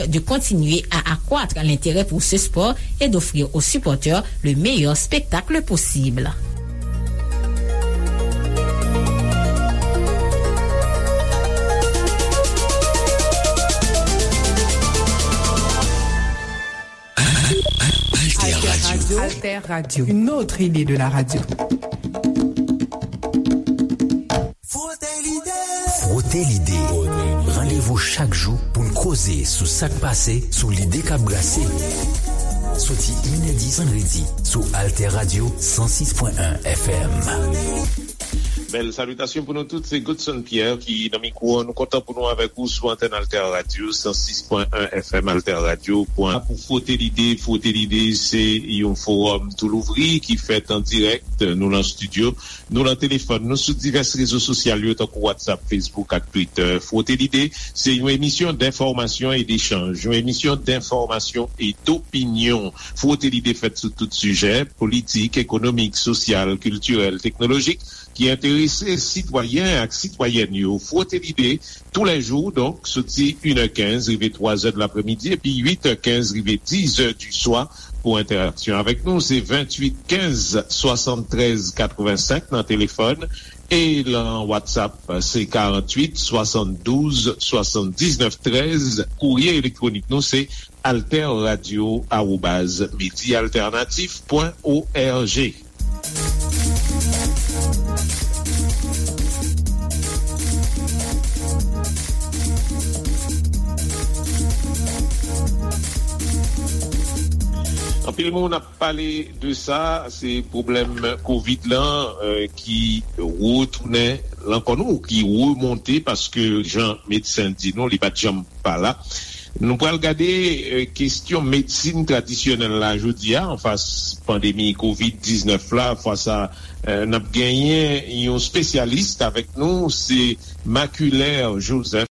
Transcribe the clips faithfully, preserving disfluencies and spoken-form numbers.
de continuer à accroître l'intérêt pour ce sport et d'offrir aux supporters le meilleur spectacle possible. Alter Radio. Alter Radio. Une autre idée de la radio. Frote l'idée. Frote l'idée. Randevou chak jou pou n koze sou sa k pase, sou lide k ap brase. Soti inèdi vandredi sou Alter Radio san sis pwen en F M. Bèl salitasyon pou nou tout, se Godson Pierre ki nan mikwo an. Nou kontan pou nou avèk ou sou antèn Alter Radio san sis pwen en F M, Alter Radio pwen pou Frote Lide. Frote Lide se yon fowòm tou louvri ki fèt an dirèk. Nou nan estidyo, nou nan telefòn, nou sou divès rezo sosyal yo, tankou WhatsApp, Facebook ak Twitter. Frote Lide se yon emisyon denfòmasyon e dechanj, yon emisyon denfòmasyon e dopinyon. Frote Lide fèt sou tout sijè, politik, ekonomik, sosyal, kiltirèl, teknolojik, ki enterese sitwayen ak sitwayèn yo. Frote Lide, tou lè jou, donk, soti inè kenz rive twazè de lapremidi, epi uitè kenz rive dizè di swa. Pou entèraksyon avèk nou, se venntuit kenz swasanntrèz katrevensenk nan telefòn, e lan WhatsApp, se karanntuit swasanndouz swasanndiznèf trèz. Kourye elektwonik nou, se alterradio arobaz medialternatif pwen org. Anpil moun ap pale de sa, se pwoblèm kovid lan, eh, ki retounen lankò nou, ki remonte, paske jan medsen di nou, li pa t janm pa la. Nou pral gade, eh, kesyon medsin tradisyonèl la jodi a, anfas pandemi kovid diznèf la. Fwa sa, eh, n ap genyen yon espesyalis avèk nou, se Maculer Joseph.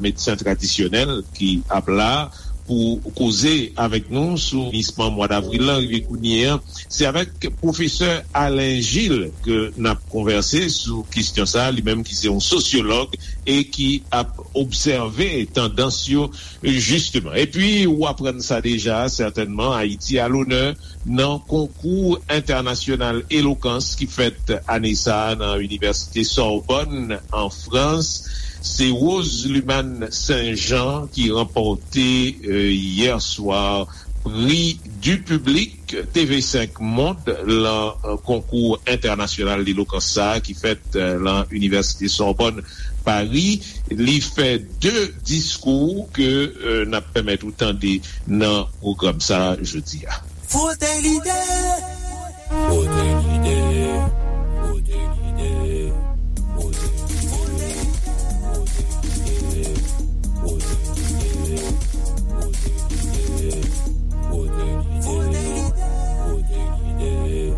Medsen tradisyonèl ki ap la pou koze avèk nou sou finisman mwa davril lan rive kounye a. Se avèk pwofesè Alain Gilles ke n ap konvèse sou kesyon sa, li menm ki se yon sosyològ e ki ap obsève tandans yo, jisteman. Epi, ou aprann sa deja, sètènman, Ayiti a lonè nan konkou entènasyonal elokans ki fèt ane sa a nan Inivèsite Sorbonne, an Frans. Se Rose Lumane Saint-Jean ki ranpòte, eh, yè swa pri du public T V cinq Monde lan, eh, konkou entènasyonal elokans sa a ki fèt, eh, lan Inivèsite Sorbonne, Paris. Li fè de diskou ke, eh, n ap pèmèt ou tande nan pwogram sa a jodi a. Frote Lide. Frote Lide. Frote Lide. Frote Lide. Frote Lide. Frote Lide. Frote Lide. Frote Lide.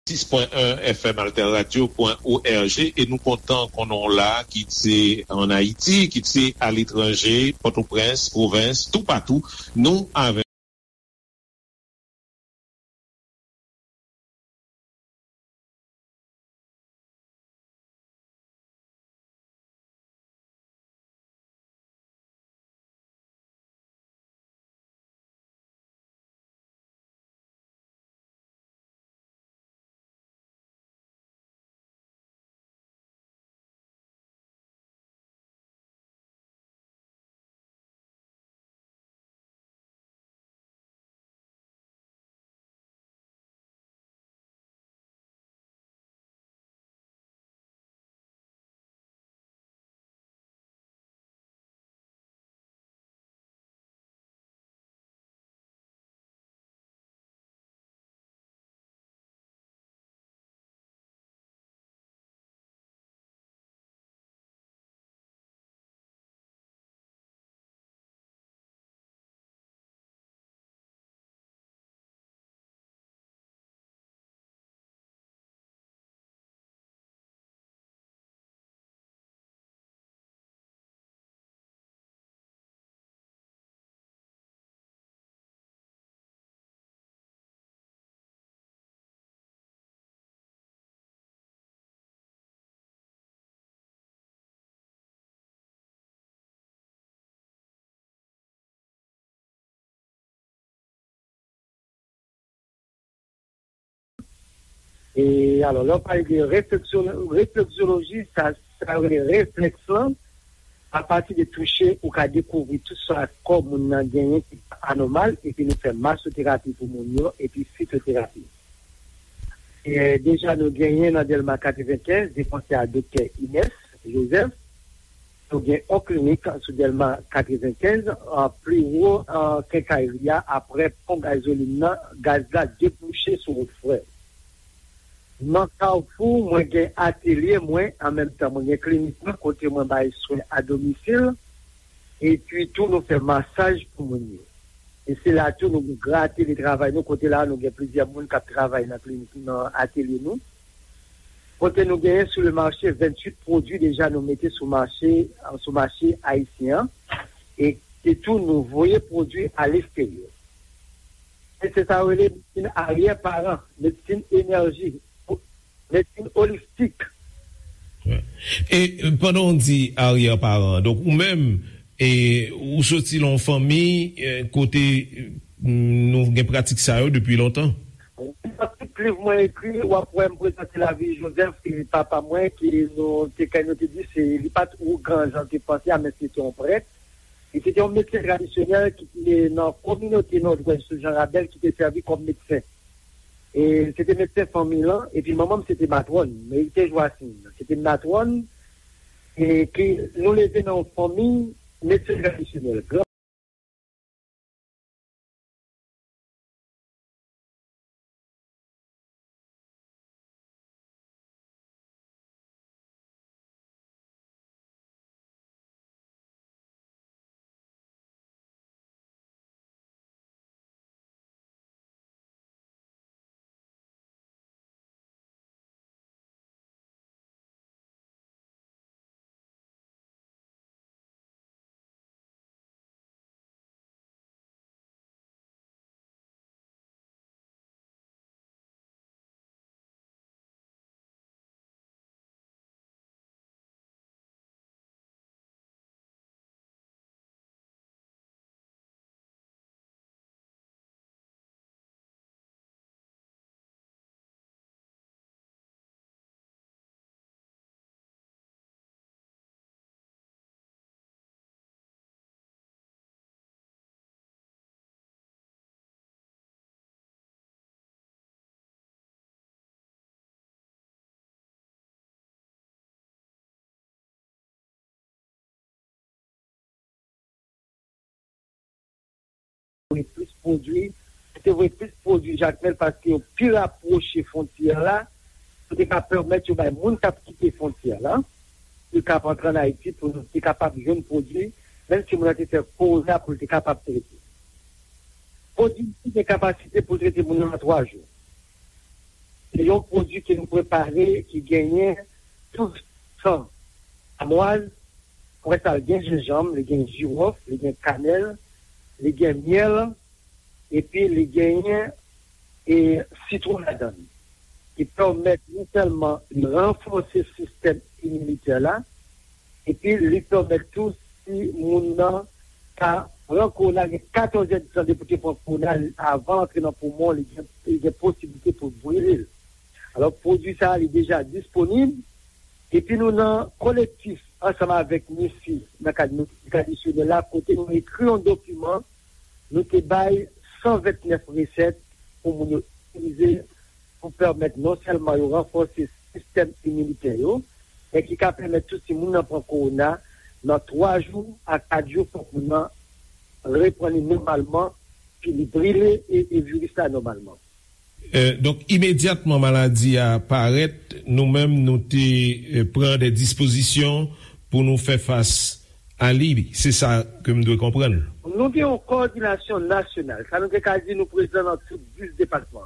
sis pwen en F M Alter Radio pwen O R G, e nou kontan konnen w la, kit se ann Ayiti, kit se aletranje, Pòtoprens, pwovens, toupatou, nou avè E alò, lè w pale de refleksyon, refleksyoloji, sa, sa rele reflèks lan, apati de touche, ou ka dekouvri tout sa kò moun nan genyen ki anòmal, epi nou fè masoterapi pou moun yo, epi fitoterapi. E, deja, nou genyen nan Dèlma katrevenkenz, de konsèy a Doktè Inès Joseph. Nou gen yon klinik sou Dèlma katrevenkenz, a, pli wo, a, kenkayri a, aprè pon gazolin nan, gaz la debouche sou wout frè. Nan Kafou, mwen gen atelye mwen, an menm tan, mwen gen klinik mwen, kote mwen bay swen a domisil, epi tou nou fè masaj pou moun yo. E se la tou nou gen gran atelye travay nou, kote la nou gen plizyè moun k ap travay nan klinik, nan atelye nou. Kote nou genyen sou le mache venntuit pwodui deja nou mete sou mache, sou mache ayisyen an. E, e tou nou voye pwodui a lesterye. E se sa yo rele medsin aryè paran, medsin enèji, medsin olistik. E pandan w di aryè paran, donk ou menm, e, ou soti nan yon fanmi, e, kote, e, nou gen pratik sa yo depi lontan? Tout liv mwen ekri, w ap wè m prezante lavi Joseph, ki papa mwen, ki nou te, kè nou te di, se, li pa t ougan jan te panse a, men se te yon prèt. E se te yon medsen tradisyonèl ki te nan kominote Nòdwès sou Jan Rabèl ki te sèvi kòm medsen. E se te medsen fanmi lan, epi manman m se te matwòn, Merite Joacine. Se te matwòn, e ki nou leve nan yon fanmi medsen tradisyonèl. Gran Voye plis pwodui, te voye plis pwodui Jakmèl paske yo pi rapwoche fwontyè la, pou te ka pèmèt yo bay moun k ap kite fwontyè la, pou yo ka ap antre ann Ayiti, pou nou te kapab jwenn pwodui, menm si moun nan te fè kowoze a pou l te kapab trete. Pwodui te gen kapasite pou l trete moun nan nan twa jou. Se yon pwodui ke nou prepare ki genyen tou san amwaz, apre sa, li gen jenjanm, li gen jiwòf, li gen kanèl, li gen myèl, epi li genyen e sitwon ladan l, ki pèmèt non sèlman li ranfòse sistèm iminitè la, epi li pèmèt tou si moun nan ka pran kowona, gen katòz èdtan depi w te pran kowona, avan l antre nan poumon, li gen, li gen posiblite pou brile l. Alò, pwodui sa a, li deja disponib, epi nou nan kolektif ansanm avèk MISI nan kad medikal tradisyonèl la, kote nou ekri yon dokiman, nou te bay san vennèf resèt pou moun yo itilize pou pèmèt non sèlman yo ranfòse sistèm iminitè yo, men ki ka pèmèt tou si moun nan pran kowona, nan twa jou a kat jou, fòk moun nan reprann li nòmalman, pi li brile e, e viris la nòmalman. Euh, donk, imedyatman maladi a parèt, nou menm nou te euh, pran de dispozisyon pou nou fè fas a li. Se sa ke m dwe konprann. Nou gen yon kowòdinasyon nasyonal. Sa nou te ka di nou prezan nan tout dis depatman.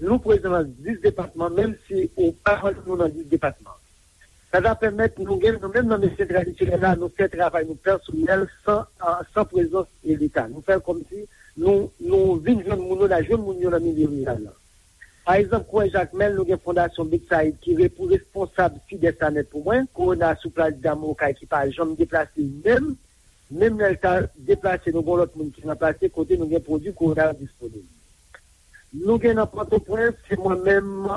Nou prezan nan dis depatman, menm si ou pa wè nou nan dis depatman. Sa ta pèmèt nou gen, nou menm nan medsen tradisyonèl la, nou fè travay nou pèsonèl san, san prezans e Leta. Nou fè l kòmsi nou, nou vin jwenn moun yo, n a jwenn moun yo nan milye riral la. Pa egzanp, kwè Jakmèl, nou gen Fondasyon Betsaid ki re, pou responsab Sidès la nèt pou mwen, Kowona sou plas Dam Okay ki pa janm deplase menm, menm lè l ta deplase, nou gen lòt moun ki ranplase, kote nou gen pwodui Kowona yo disponib. Nou gen nan Pòtoprens, se mwen menm,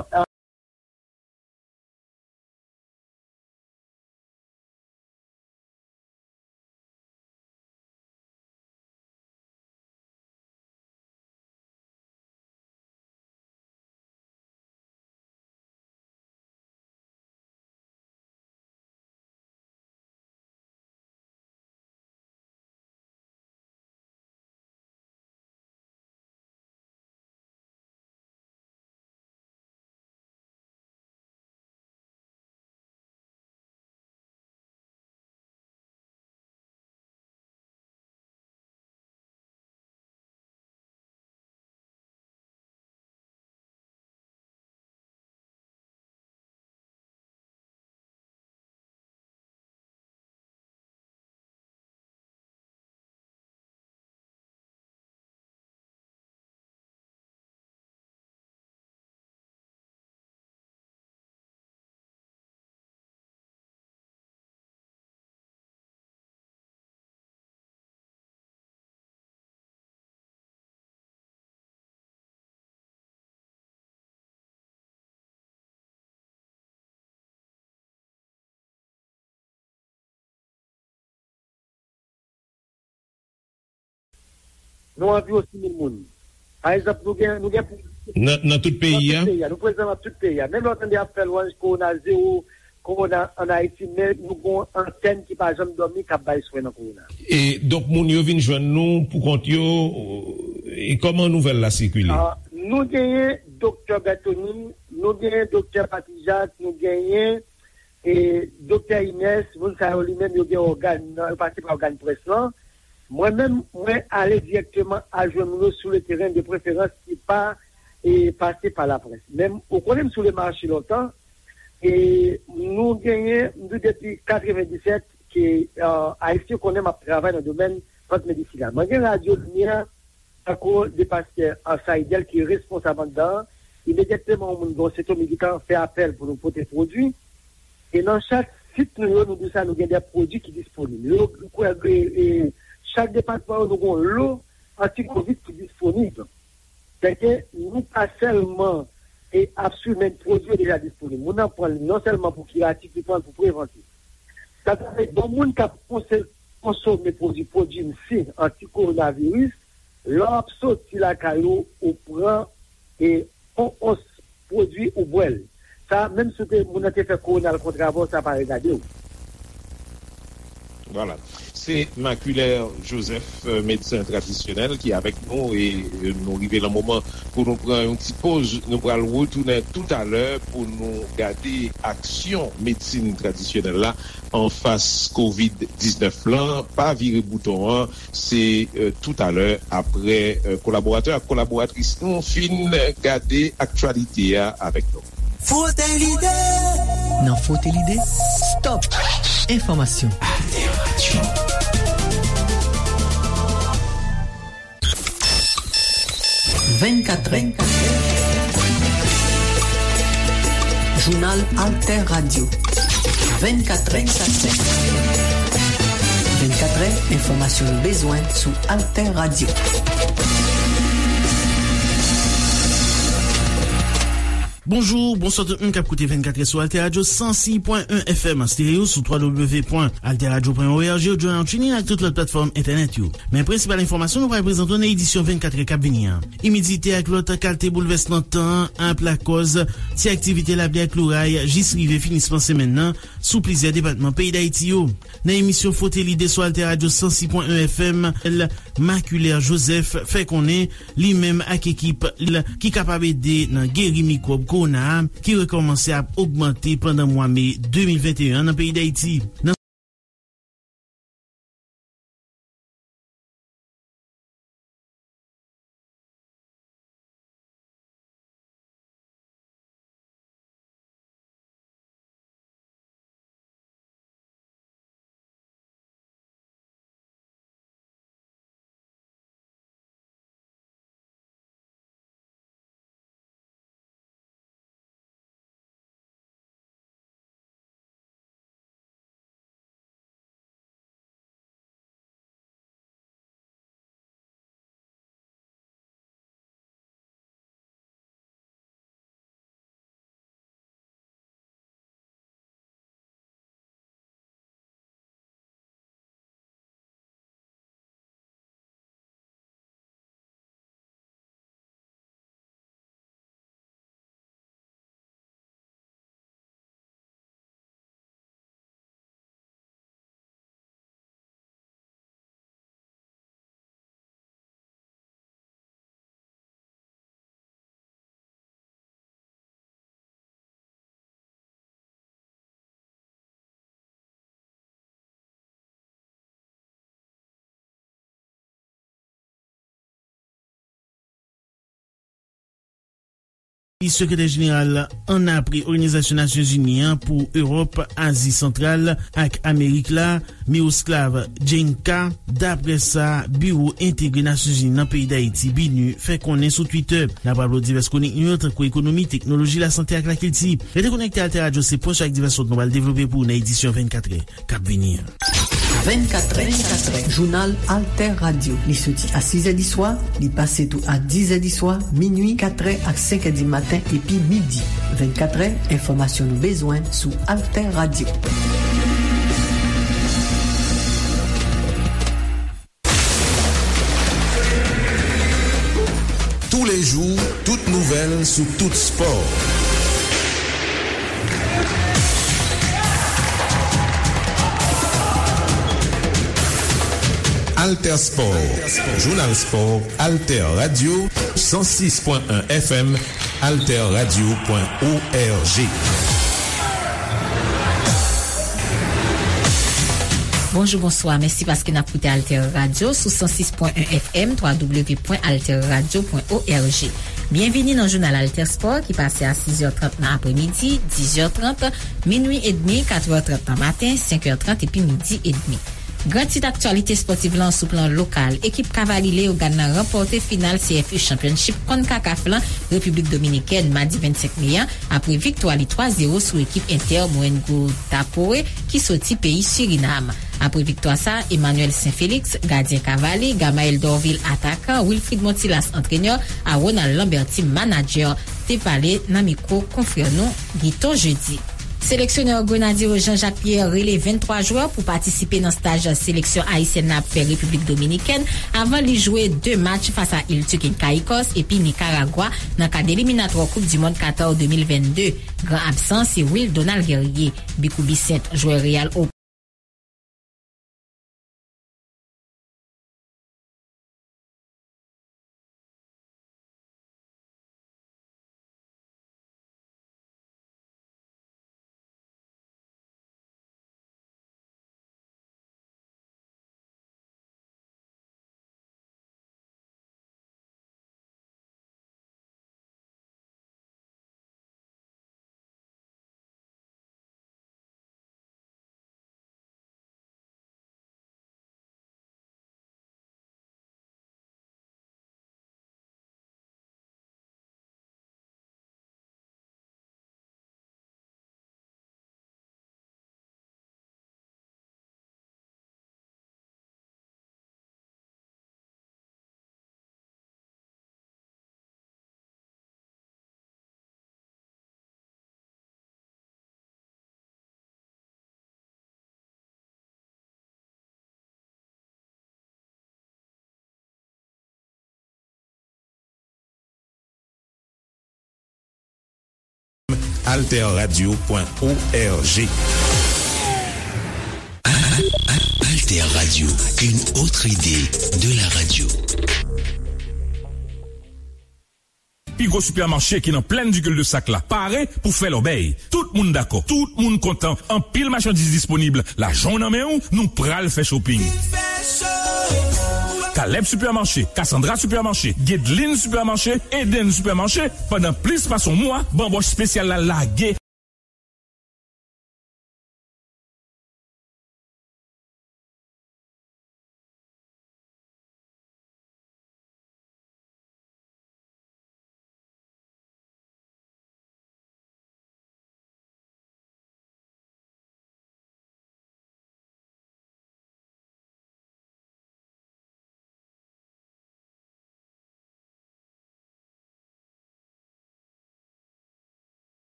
Nou anviwon sis mil moun. Pa egzanp, nou gen, nou gen. Nan, nan tout peyi a? Nan tout peyi a. Nou prezan nan tout peyi a. Menm lè w tande y ap fè lwanj kowona zewo, kowona ann Ayiti, men nou gen yon antèn ki pa janm dòmi k ap bay swen nan kowona. E, donk, moun yo vin jwenn nou poukont yo, e kòman nouvèl la sikile? Ah, nou genyen Doktè Bertony, nou genyen Doktè Patrijak, nou genyen e Doktè Inès, moun sa yo li menm yo gen ògàn nan, yo pase pa ògàn près lan. Mwen menm, mwen ale dirèkteman al jwenn moun yo sou le teren, de preferans ki pa e pase pa laprès. Men ou konnen m sou le mache lontan, e nou genyen, m di w depi katrevenndisèt ke Ayisyen konnen m ap travay nan domèn plant medisinal. Mwen gen Radyo Limyè, tankou de pastè Saidel ki responsab anndan an, imedyatman yon moun gen yon sentòm, li gentan fè apèl pou nou pote pwodui. E nan chak sit nou yo, nou di sa, nou gen de pwodui ki disponib. Yo, e, e, chak depatman yo, nou gen yon lo antikovid ki disponib. Sèke nou pa sèlman e ap swiv, men pwodui yo deja disponib. Moun nan pran li non sèlman pou kiratif, li pran l pou prevantif. Sa vle di, bon, moun k ap konse-, konsome pwodui Prodwimsi anti-kowonaviris, lè w ap soti lakay ou, ou pran e yon ons pwodui ou bwè l. Sa, menm si w te, moun nan te fè kowona l kont avè w, sa pa regade w. Vwala. Se Maculaire Joseph, euh, medsen tradisyonèl ki avèk nou e, euh, nou rive nan moman pou nou pran yon ti poz. Nou pral retounen toutalè pou nou gade aksyon medsin tradisyonèl la anfas kovid diznèf lan. Pa vire bouton an, se, euh, toutalè apre, euh, kolaboratè ak kolaboratris nou fin gade aktyalite a avèk nou. Frote lide. Nan Frote lide, stop enfòmasyon. Vennkat è. Jounal Alter Radio. Vennkat è. Vennkat è, enfòmasyon nou bezwen sou Alter Radio. Bonjou, bonswa tout moun k ap koute vennkat è sou Alter Radio san sis pwen en F M an stereo sou twa W pwen alter radio pwen org, ou journal, TuneIn ak tout lòt platfòm entènèt yo. Men prensipal enfòmasyon nou pral prezante w nan edisyon vennkat è k ap vini an. Imidite ak lòt kalte boulvèsman tan an ap lakòz ti aktivite lapli ak loray jis rive finisman semèn nan sou plizyè depatman peyi Dayiti yo. Nan emisyon Frote Lide sou Alter Radio san sis pwen en F M, Maculaire Joseph fè konnen li menm ak ekip l ki kapab ede nan geri mikwòb kowona a ki rekòmanse ap ogmante pandan mwa me de mil venteyen an nan peyi Dayiti. Nan Sekretè jeneral annapre Òganizasyon Nasyonzini an pou Ewòp, Azi Santral ak Amerik la, Miroslav Djenka, dapre sa Biwo Entegre Nasyonzini nan peyi Dayiti, BINUH, fè konnen sou Twitter. N ap raple w divès konik nou yo, tankou ekonomi, teknoloji, lasante ak lakilti. Rete konekte Alter Radio, se pwen sou ak divès lòt nou pral devlope pou ou nan edisyon vennkat è k ap vini an. Vennkat è, jounal Alter Radio. Li soti a sis è di swa, li pase tou a dis è di swa, minui, kat è ak senk è di maten, epi midi. Vennkat è, enfòmasyon nou bezwen sou Alter Radio. Tous les jours, toute nouvelle sous tout sport. Alter Sport, jounal spò, Alter Radio, san sis pwen en F M, alter radio pwen org. Bonjou, bonswa. Mèsi paske n ap koute Alter Radio sou san sis pwen en F M, twa W pwen alter radio pwen org. Byenvini nan jounal Alter Sport ki pase a sis è trant nan aprèmidi, dis è trant, minui edmi, kat è trant nan maten, senk è trant epi midi edmi. Gran tit aktyalite espòtiv lan sou plan lokal, ekip Kavalye Leyogàn nan ranpòte final C F U Championship Concacaf lan Repiblik Dominikèn madi vennsenk me a, apre viktwa li twa zewo sou ekip Inter Mohenjo-Dapore ki soti peyi Sirinam. Apre viktwa sa, Emmanuel Saint-Félix, gadyen Kavalye, Gamaël Dorvil, atakan, Wilfried Montilas, antrenè, a Ronald Lamberty, manadjè, te pale nan mikwo konfrè nou Guito Jeudi. Seleksyonè Grenadye yo Jean-Jacques Pierre rele venntwa jwè pou patisipe nan staj seleksyon ayisyèn nan ap fè Repiblik Dominikèn avan li jwe de match fas a Iltuk and Caicos epi Nikaragwa nan kad eliminatwa Koup di Mond Qatar de mil vennde. Gran absan se Will Donald Guerrier, Bicou Bissainthe, jwè Real O Alter Radio point O R G. Alter Radio, une autre idée de la radio. Pi gwo sipèmache ki nan plèn di Cul-de-Sac la pare pou fè lòbèy. Tout moun dakò, tout moun kontan. Anpil machandiz disponib. Lajan w nan men w, nou pral fè shopping. Caleb Supermarché, Cassandra Supermarché, Guedeline Supermarché, Eden Supermarché, pandan plis pase yon mwa, banbòch espesyal la lage.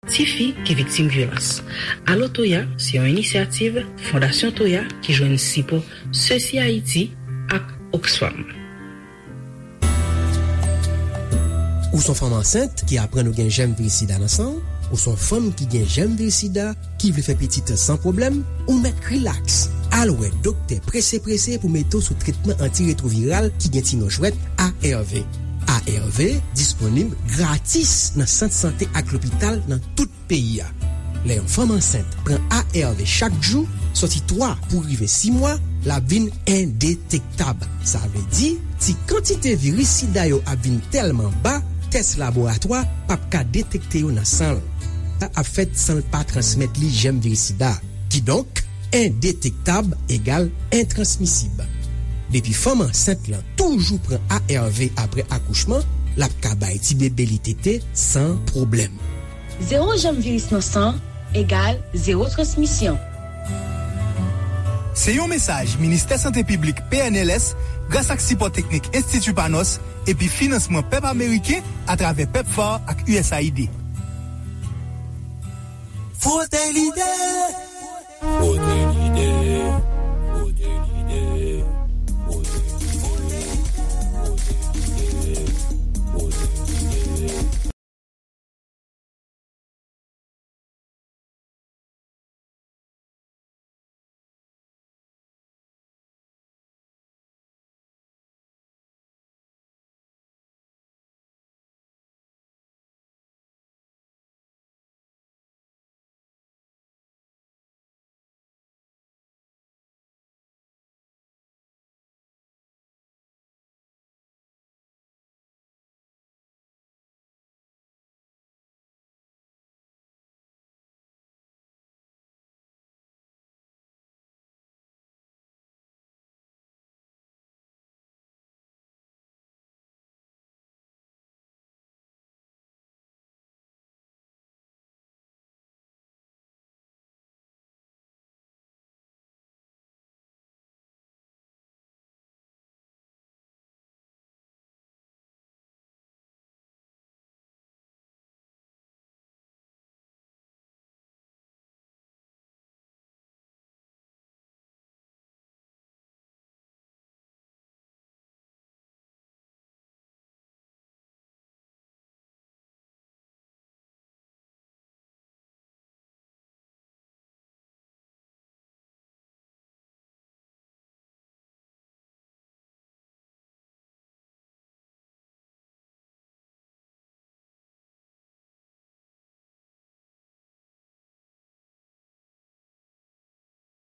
Tifi ki viktim vyolans. Alo Toya se yon inisyativ Fondasyon Toya ki jwenn sipò Sesi Ayiti ak Oxfam. Ou se yon fanm ansent ki aprann ou gen jèm viris sida nan san w? Ou se yon fanm ki gen jèm viris sida ki vle fè pitit san pwoblèm? Ou mèt rilaks. Al wè doktè prese prese pou mete w sou tretman antiretwoviral ki gen ti non jwèt A R V. A R V disponib gratis nan sant sante ak lopital nan tout peyi a. Lè yon fanm ansent pran A R V chak jou, soti twa pou rive sis mwa, l ap vin endetektab. Sa vle di, ti kantite viris sida yo ap vin tèlman ba, tès laboratwa p ap ka detekte yo nan san l. Sa ap fèt san l pa transmèt li jèm viris sida. Kidonk, endetektab egal entransmisib. Depi fanm ansent lan toujou pran A R V apre akouchman, l ap ka bay tibebe li tete san pwoblèm. Zewo jèm viris nan san egal zewo transmisyon. Se yon mesaj Ministè Sante Piblik, P N L S, gras ak sipò teknik Enstiti Panos epi finansman pèp ameriken atravè PEPFAR ak U S A I D. Frote lide! Frote lide! Frote lide! Frote lide! Frote lide! Frote lide!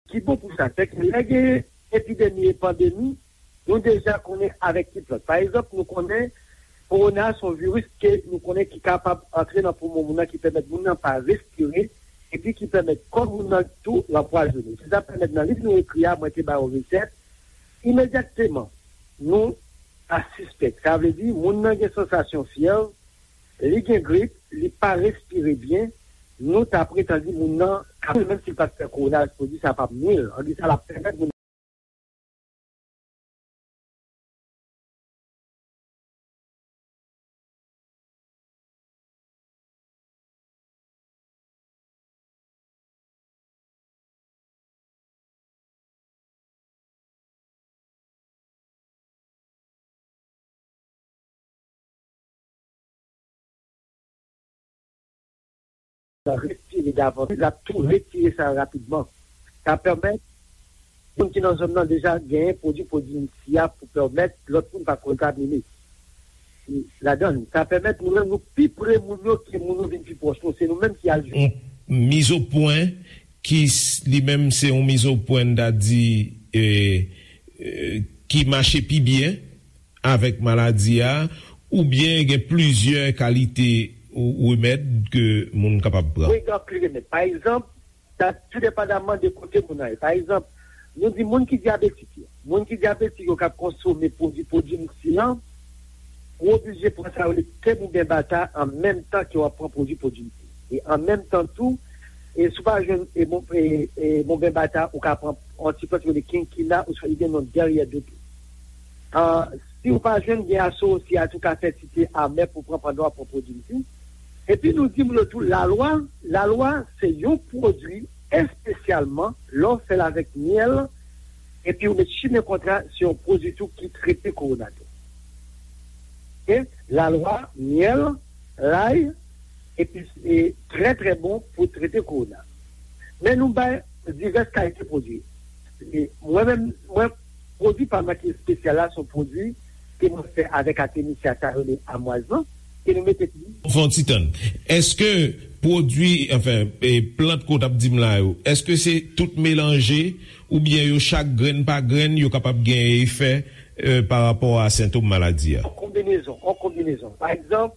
Ki bon pou sa, se ke lè gen epidemi e pandemi, nou deja konnen avèk ki plant. Pa egzanp, nou konnen Kowona se yon viris ke nou konnen ki kapab antre nan poumon moun nan, ki pèmèt moun nan pa respire, epi ki pèmèt kò moun nan tou l anpwazonnen. Se sa k pèmèt nan liv nou ekri a, mwen te ba yo resèt, imedyatman, nou ta sispèk. Sa vle di, moun nan gen sansasyon fyèv, li gen grip, li pa respire byen, nou ta pretann di moun nan ka mouri, menm si l pa t fè kowona, pwodui sa p ap nwi l. An di sa, l ap pèmèt moun respire davantaj, l ap tou retire sa rapidman. Sa pèmèt moun ki nan zòn nan deja genyen pwodui pwodui sa pou pèmèt lòt moun pa kontamine ladan l. Sa pèmèt nou menm nou pi pre moun yo ke moun yo vin pi pwòch nou. Se nou menm ki al jwenn. Yon mizopwen ki s- li menm se yon mizopwen, n ta di, e, e, ki mache pi byen avèk maladi a, oubyen gen plizyè kalite ou- remèd ke moun kapab pran? Wi, gen anpil remèd. Pa egzanp, sa tou depandaman de kote moun nan ye. Pa egzanp, nou di moun ki dyabetik yo. Moun ki dyabetik yo k ap konsome pwodui pwodui sa, ou oblije pran sa yo rele tèm oubyen bata an menm tan ke w ap pran pwodui pwodui sa. E an menm tan tou, e si w pa jwenn e bon, e, e bonben bata, ou ka pran yon ti plant ki rele kinkina, oswa li gen non dèryè do tou. Ah, si w pa jwenn, gen asosi a tou ka fè ti te amè pou pran pandan w ap pran pwodui sa. Epi nou di moun yo tou, lalwa, lalwa se yon pwodui espesyalman lè w fè l avèk myèl, epi w met chimen kontra, se yon pwodui tou ki trete kowona tou. Oke? Lalwa, myèl, lay, epi e trè, trè bon pou trete kowona. Men nou bay divès kalite pwodui. E mwen menm, mwen, pwodui pa mwen ki espesyal la, se yon pwodui ke mwen fè avèk atemisya sa yo rele amwaz lan, ke nou mete. Fè yon ti tann. Èske pwodui, anfen, e plant ke w t ap di m la yo, èske se tout melanje oubyen yo chak grenn pa grenn, yo kapab gen efè, e, pa rapò a sentòm maladi a? An konbinezon, an konbinezon. Pa egzanp,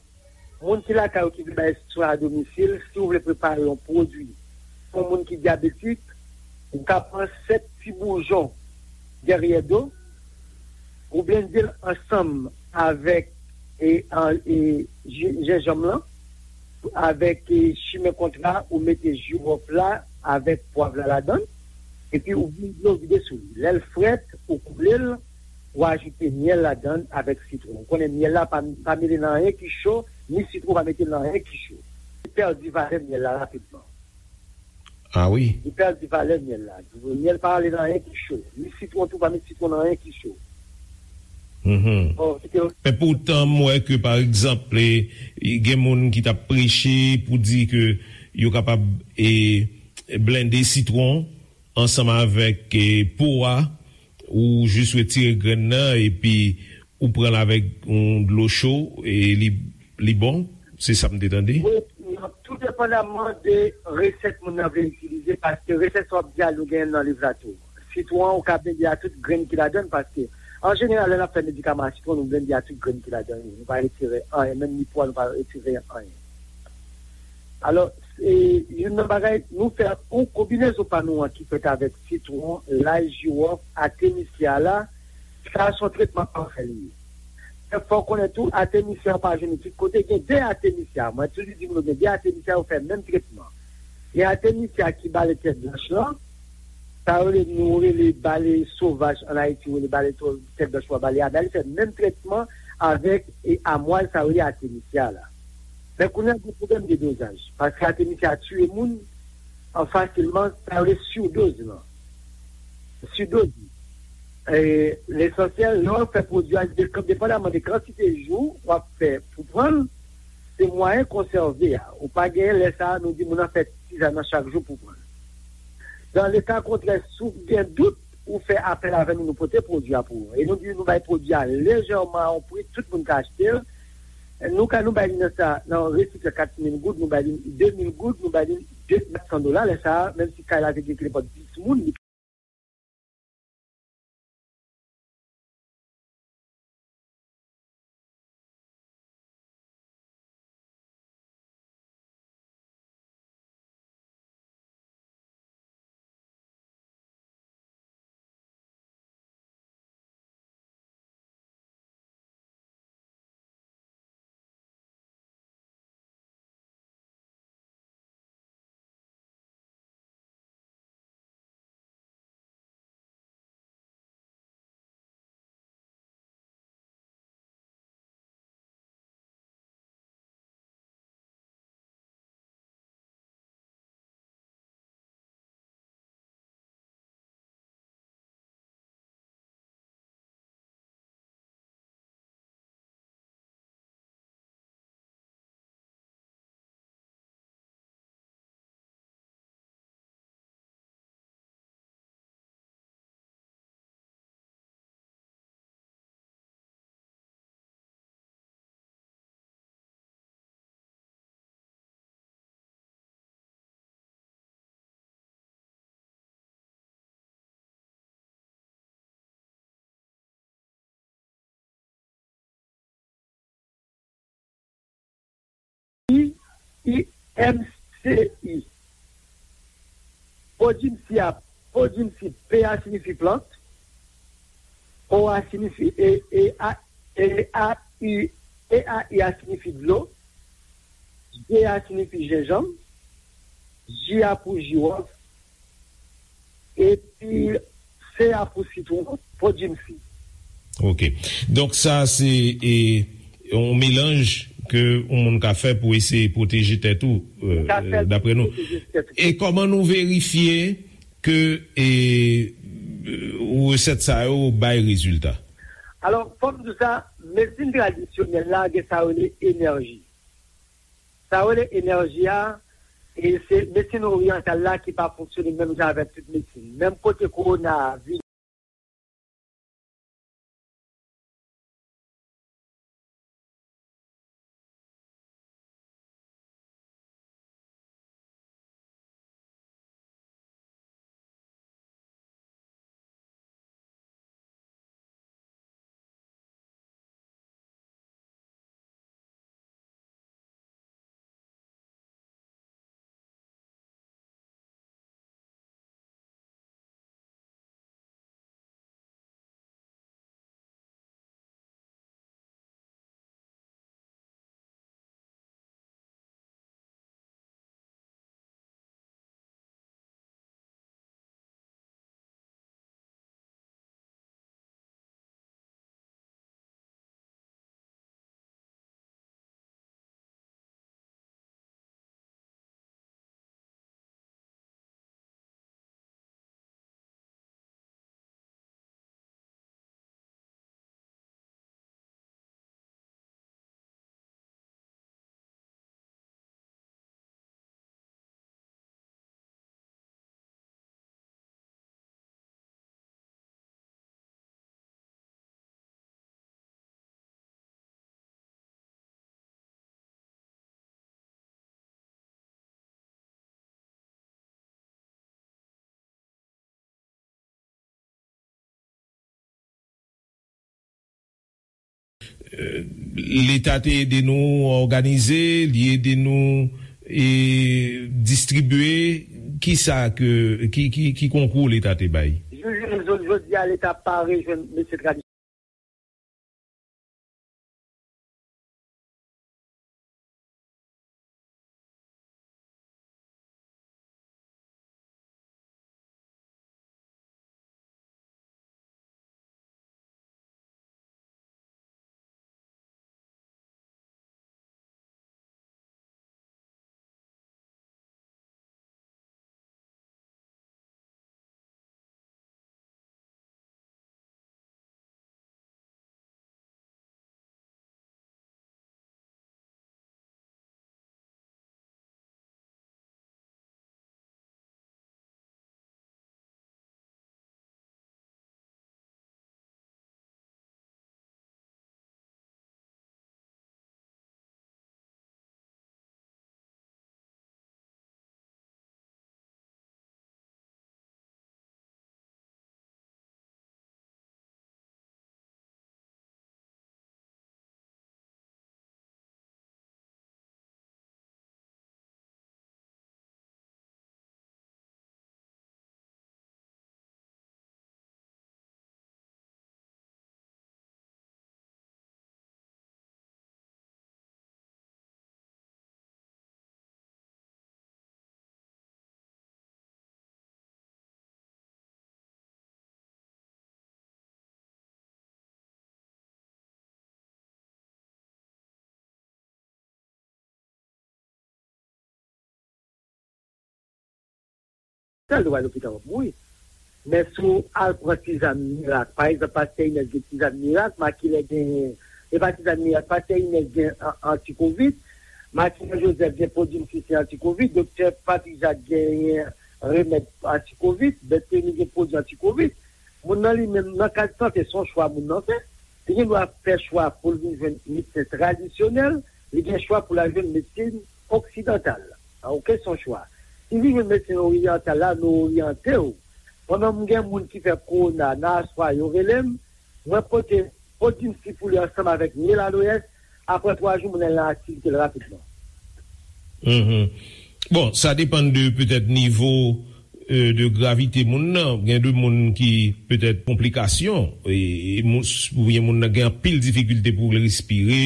moun ki lakay ou ki vle bay swen a domisil, si w vle prepare yon pwodui pou moun ki dyabetik, ou ka pran sèt ti boujon dèryè do, ou blende l ansanm avèk, e, an, e, ji- jenjanm lan, avèk, e, chimen kontra, ou mete jiwòf la avèk pwav la ladan l, epi ou vide dlo vide sou li. Lè l frèt, ou koule l, ou ajoute myèl ladan l avèk sitwon. Ou konnen myèl la pa, pa mele nan anyen ki cho, ni sitwon pa mete nan anyen ki cho. Li pèdi valè myèl la rapidman. Ah wi. Li pèdi valè myèl la. Myèl pa ale nan anyen ki cho. Ni sitwon tou, pa met sitwon nan anyen ki cho. Mhm. Bon, se te Men poutan, m wè ke, pa egzanp, e, gen moun ki t ap preche pou di ke yo kapab, e, blende sitwon ansanm avèk, e, po a, ou jis retire grenn nan, epi ou pran l avèk yon dlo cho, e li, li bon. Se sa m te tande. Wi, tou depandaman de resèt moun nan vle itilize, paske resèt sa w ap di a, nou genyen nan liv la tou. Sitwon an, ou ka blende a tout grenn ki ladan l, paske, an jeneral, lè n ap fè medikaman a sitwon, nou blende a tout grenn ki ladan l. Nou pa retire anyen, menm ni po a, nou pa retire anyen. Alò, e, youn nan bagay, nou fè yon konbinezon pa nou an ki fèt avèk sitwon, lay, jiwòf, atemisya la, sa se yon tretman pafè li ye. Men fò w konnen tou, atemisya ou pa jwenn li tout kote. Gen de atemisya. Mwen toujou di moun yo gen de atemisya yo fè menm tretman. Gen atemisya ki bale tèt blanch lan, sa yo rele, nou rele bale sovaj an Ayiti, yo rele bale to- tèt blanch ou bale a, men li fè menm tretman avèk, e, amwaz sa yo rele atemisya la. Men kounye a gen pwoblèm de dozaj, paske atemisya tiye moun an fasilman, sa yo rele sidoz lan. Sidoz. E, lesansyèl, lè w fè pwodui a, depandaman de kantite jou w ap fè pou pran l, se mwayen konsève a. Ou pa genyen lè sa a, nou di moun nan fè tizan nan chak jou pou pran l. Dan le ka kontrè, si w gen dout, ou fè apèl avè nou, nou pote pwodui a pou ou. E nou di nou bay pwodui a lejèman a yon pri, tout moun ka achte l. Nou ka, nou bay li nan sa, nan resi kat mil goud, nou bay li de mil goud, nou bay li de mil san dola. Lè sa a, menm si kay la te gen nenpòt dis moun, li I M C I. Podimsi a, podimsi, P a siyifi plant, O a siyifi, e, e, a, e, a, I, E a I a siyifi dlo, J a siyifi jenjanm, J a pou jiwòf, epi C a pou sitwon, podimsi. Ok. Donk sa se e, yon melanj ke yon moun ka fè pou eseye pwoteje tèt ou, e, Ka fè e, dapre nou. Pwoteje tèt ou. E kòman nou verifye ke e, resèt sa yo bay rezilta? Alò, fò m di w sa, medsin tradisyonèl la gen sa yo rele enèji. Sa yo rele enèji a, e se medsin oryantal la ki pa fonksyone menm jan avèk tout medsin. Menm kote kowona a vini. Leta te ede nou òganize, li ede nou e, distribye. Kisa ke, ki, ki, ki konkou Leta te bay? Jou, jou, jou, jodi a, Leta pa rejwenn mesye tradisyonèl. Sèl dwa lopital w ap mouri. Men si w al pran ti zam mirak, pa egzanp, pastè Inès gen ti zam mirak, Makilè gen, e pa ti zam mirak, pastè Inès gen an- antikovid, Makilè Jozèf gen pwodui misye se antikovid, doktè Patrik Jak genyen remèd antikovid, Bèteni gen pwodui antikovid. Moun nan li menm, nan kad sante, se yon chwa moun nan fè. Li gen dwa fè chwa pou l vin jwenn medsen tradisyonèl, li gen chwa pou l al jwenn medsen oksidantal. A, oke, se yon chwa. Si l vin jwenn medsen oryantal la, nou oryante w. Mwen menm, m gen moun ki fè kowona nan aswè a, yo rele m, mwen pote Podimsi pou li ansanm avèk Mil Aloès, apre twa jou, moun nan nan aktivite l rapidman. Mhm. Bon, sa depann de petèt nivo, euh, de gravite moun nan. Gen de moun ki petèt konplikasyon, e, e moun, oubyen moun nan gen anpil difikilte pou l respire.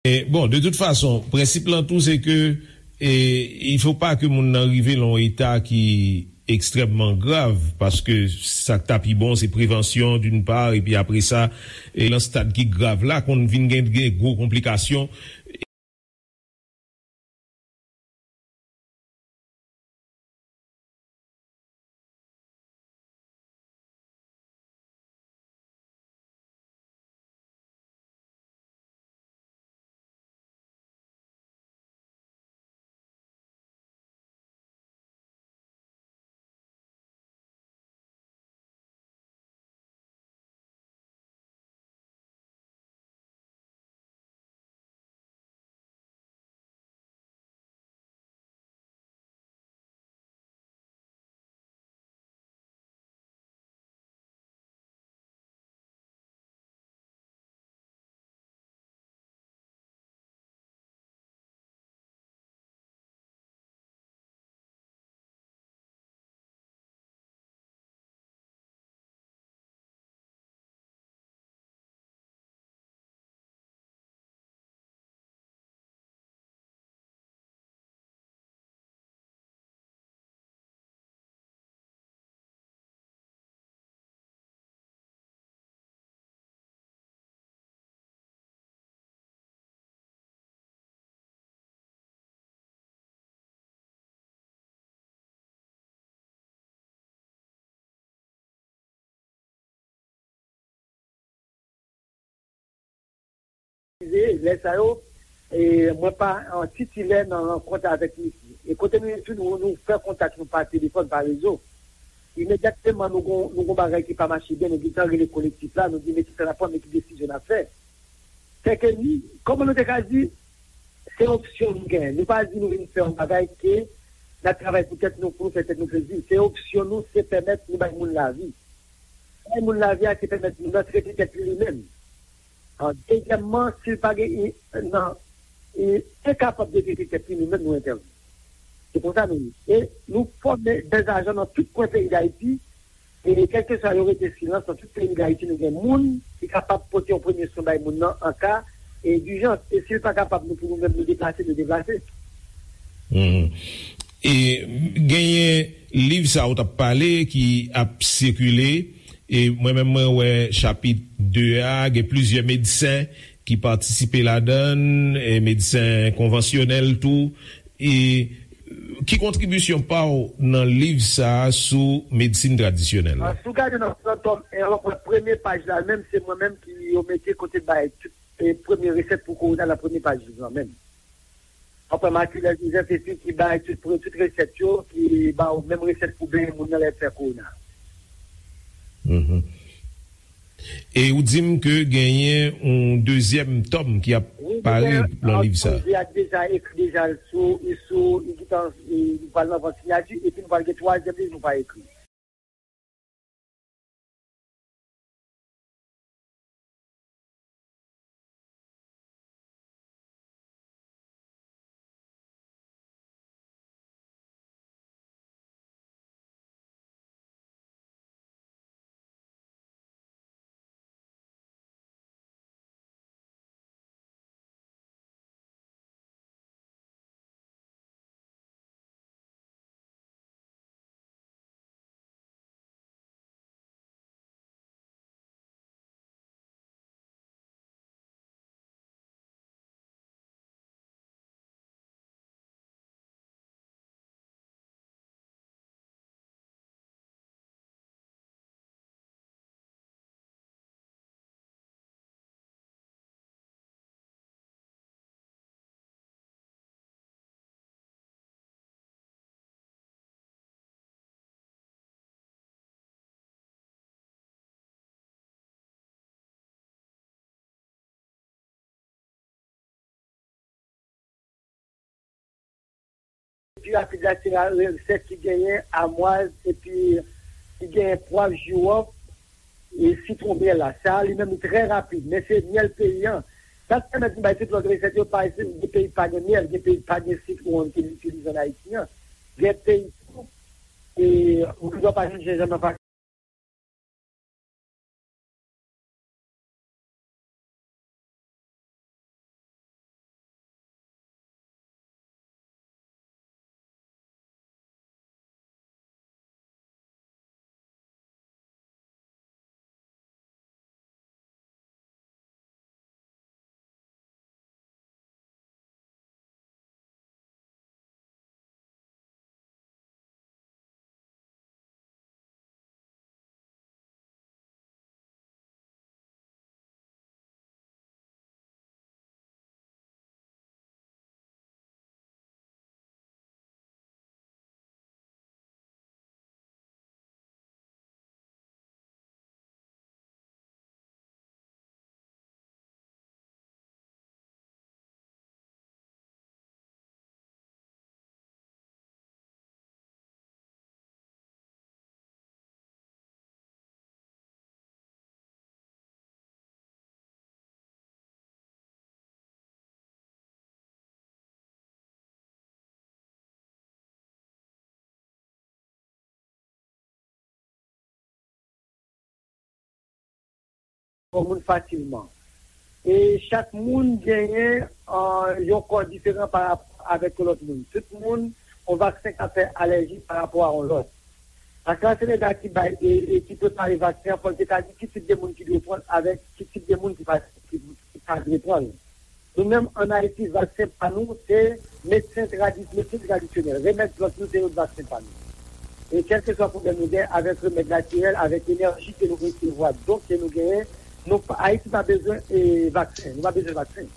E, bon, de tout fason, prensip lan tou, se ke, e, il faut pas ke moun nan rive lan yon eta ki ekstrèmman grav, paske sa k ta pi bon, se prevansyon, d'une part, epi apre sa, e, lan stad ki grav la, konn vin gen, gen gwo konplikasyon. Lè sa yo, e, mwen pa an titilè nan rankont avèk misye. E kote nou ye tou, nou, nou fè kontak nou pa telefòn, pa rezo. Imedyatman, nou gon, nou gon bagay ki pa mache byen, nou gentan rele kolektif la, nou di, "Men kisa n ap fè, men ki desizyon n ap fè." Sèke nou, kòman nou te ka di, se opsyon nou genyen. Nou pa di nou vin fè yon bagay ke n ap travay pou tèt nou, pou nou fè tèt nou plezi. Se opsyon nou, se pèmèt nou bay moun lavi. Bay moun lavi a, se pèmèt moun nan trete tèt li li menm. An, dezyèmman, si l pa gen, i, nan, i, enkapab de trete tèt li, nou menm nou entèvni. Se konsa nou ye. E nou fòme dèzajan nan tout kwen peyi Dayiti. E kèlkeswa yo rete silans, nan tout peyi Dayiti, nou gen moun ki kapab pote yon premye swen bay moun nan an ka, e, dijans. E si l pa kapab, nou pou nou menm nou deplase, nou deplase. Mhm. E genyen liv sa ou t ap pale ki ap sikile, e mwen menm mwen wè chapit de a, gen plizyè medsen ki patisipe ladan l, e medsen konvansyonèl tou. E ki kontribisyon pa w nan liv sa a sou medsin tradisyonèl la? Si w gade nan, nan tòm en an, premye paj la menm, se mwen menm ki yo mete kote bay tout, e, premye resèt pou kowona nan premye paj liv lan menm. Anfen, Matilda Joseph epi ki bay tout, tout resèt yo, ki ba w menm resèt pou benyen moun nan lè fè kowona. Mhm. E ou di m ke genyen yon dezyèm tòm ki ap pare nan liv sa. Wi, deja, li deja ekri deja sou, sou, li gentan, li pral nan vant siyati, epi nou pral gen twazyèm liv nou pral ekri. Pi rapid la, se la resèt ki genyen amwaz epi ki genyen pwav, jiwòf e sitwon myèl la. Sa a, li menm, li trè rapid, men se myèl peyi an. Sa k pèmèt nou bay tout lòt resèt yo, pa gen peyi ki pa gen myèl, gen peyi ki pa gen sitwon ki n itilize ann Ayiti an. Gen peyi tou, e, ou gen dwa pa jwenn jenjanm nan. Yon moun fasilman. E chak moun genyen, ah, yon kò diferan pa rapò avèk yon lòt moun. Tout moun, yon vaksen ka fè alèji pa rapò a yon lòt. AstraZeneca ki bay e, e ki prepare vaksen an, fò l te ka di ki tip de moun ki dwe pran l avèk ki tip de moun ki pa, ki, ki pa dwe pran l. Nou menm, ann Ayiti, vaksen pa nou, se medsen tradi-, medsen tradisyonèl. Remèd plant nou, se yon vaksen pa nou. E kèlkeswa pwoblèm nou gen avèk remèd natirèl, avèk enèji ke nou resevwa, don ke nou genyen, nou pa, Ayiti pa bezwen, e, vaksen. Nou pa bezwen vaksen.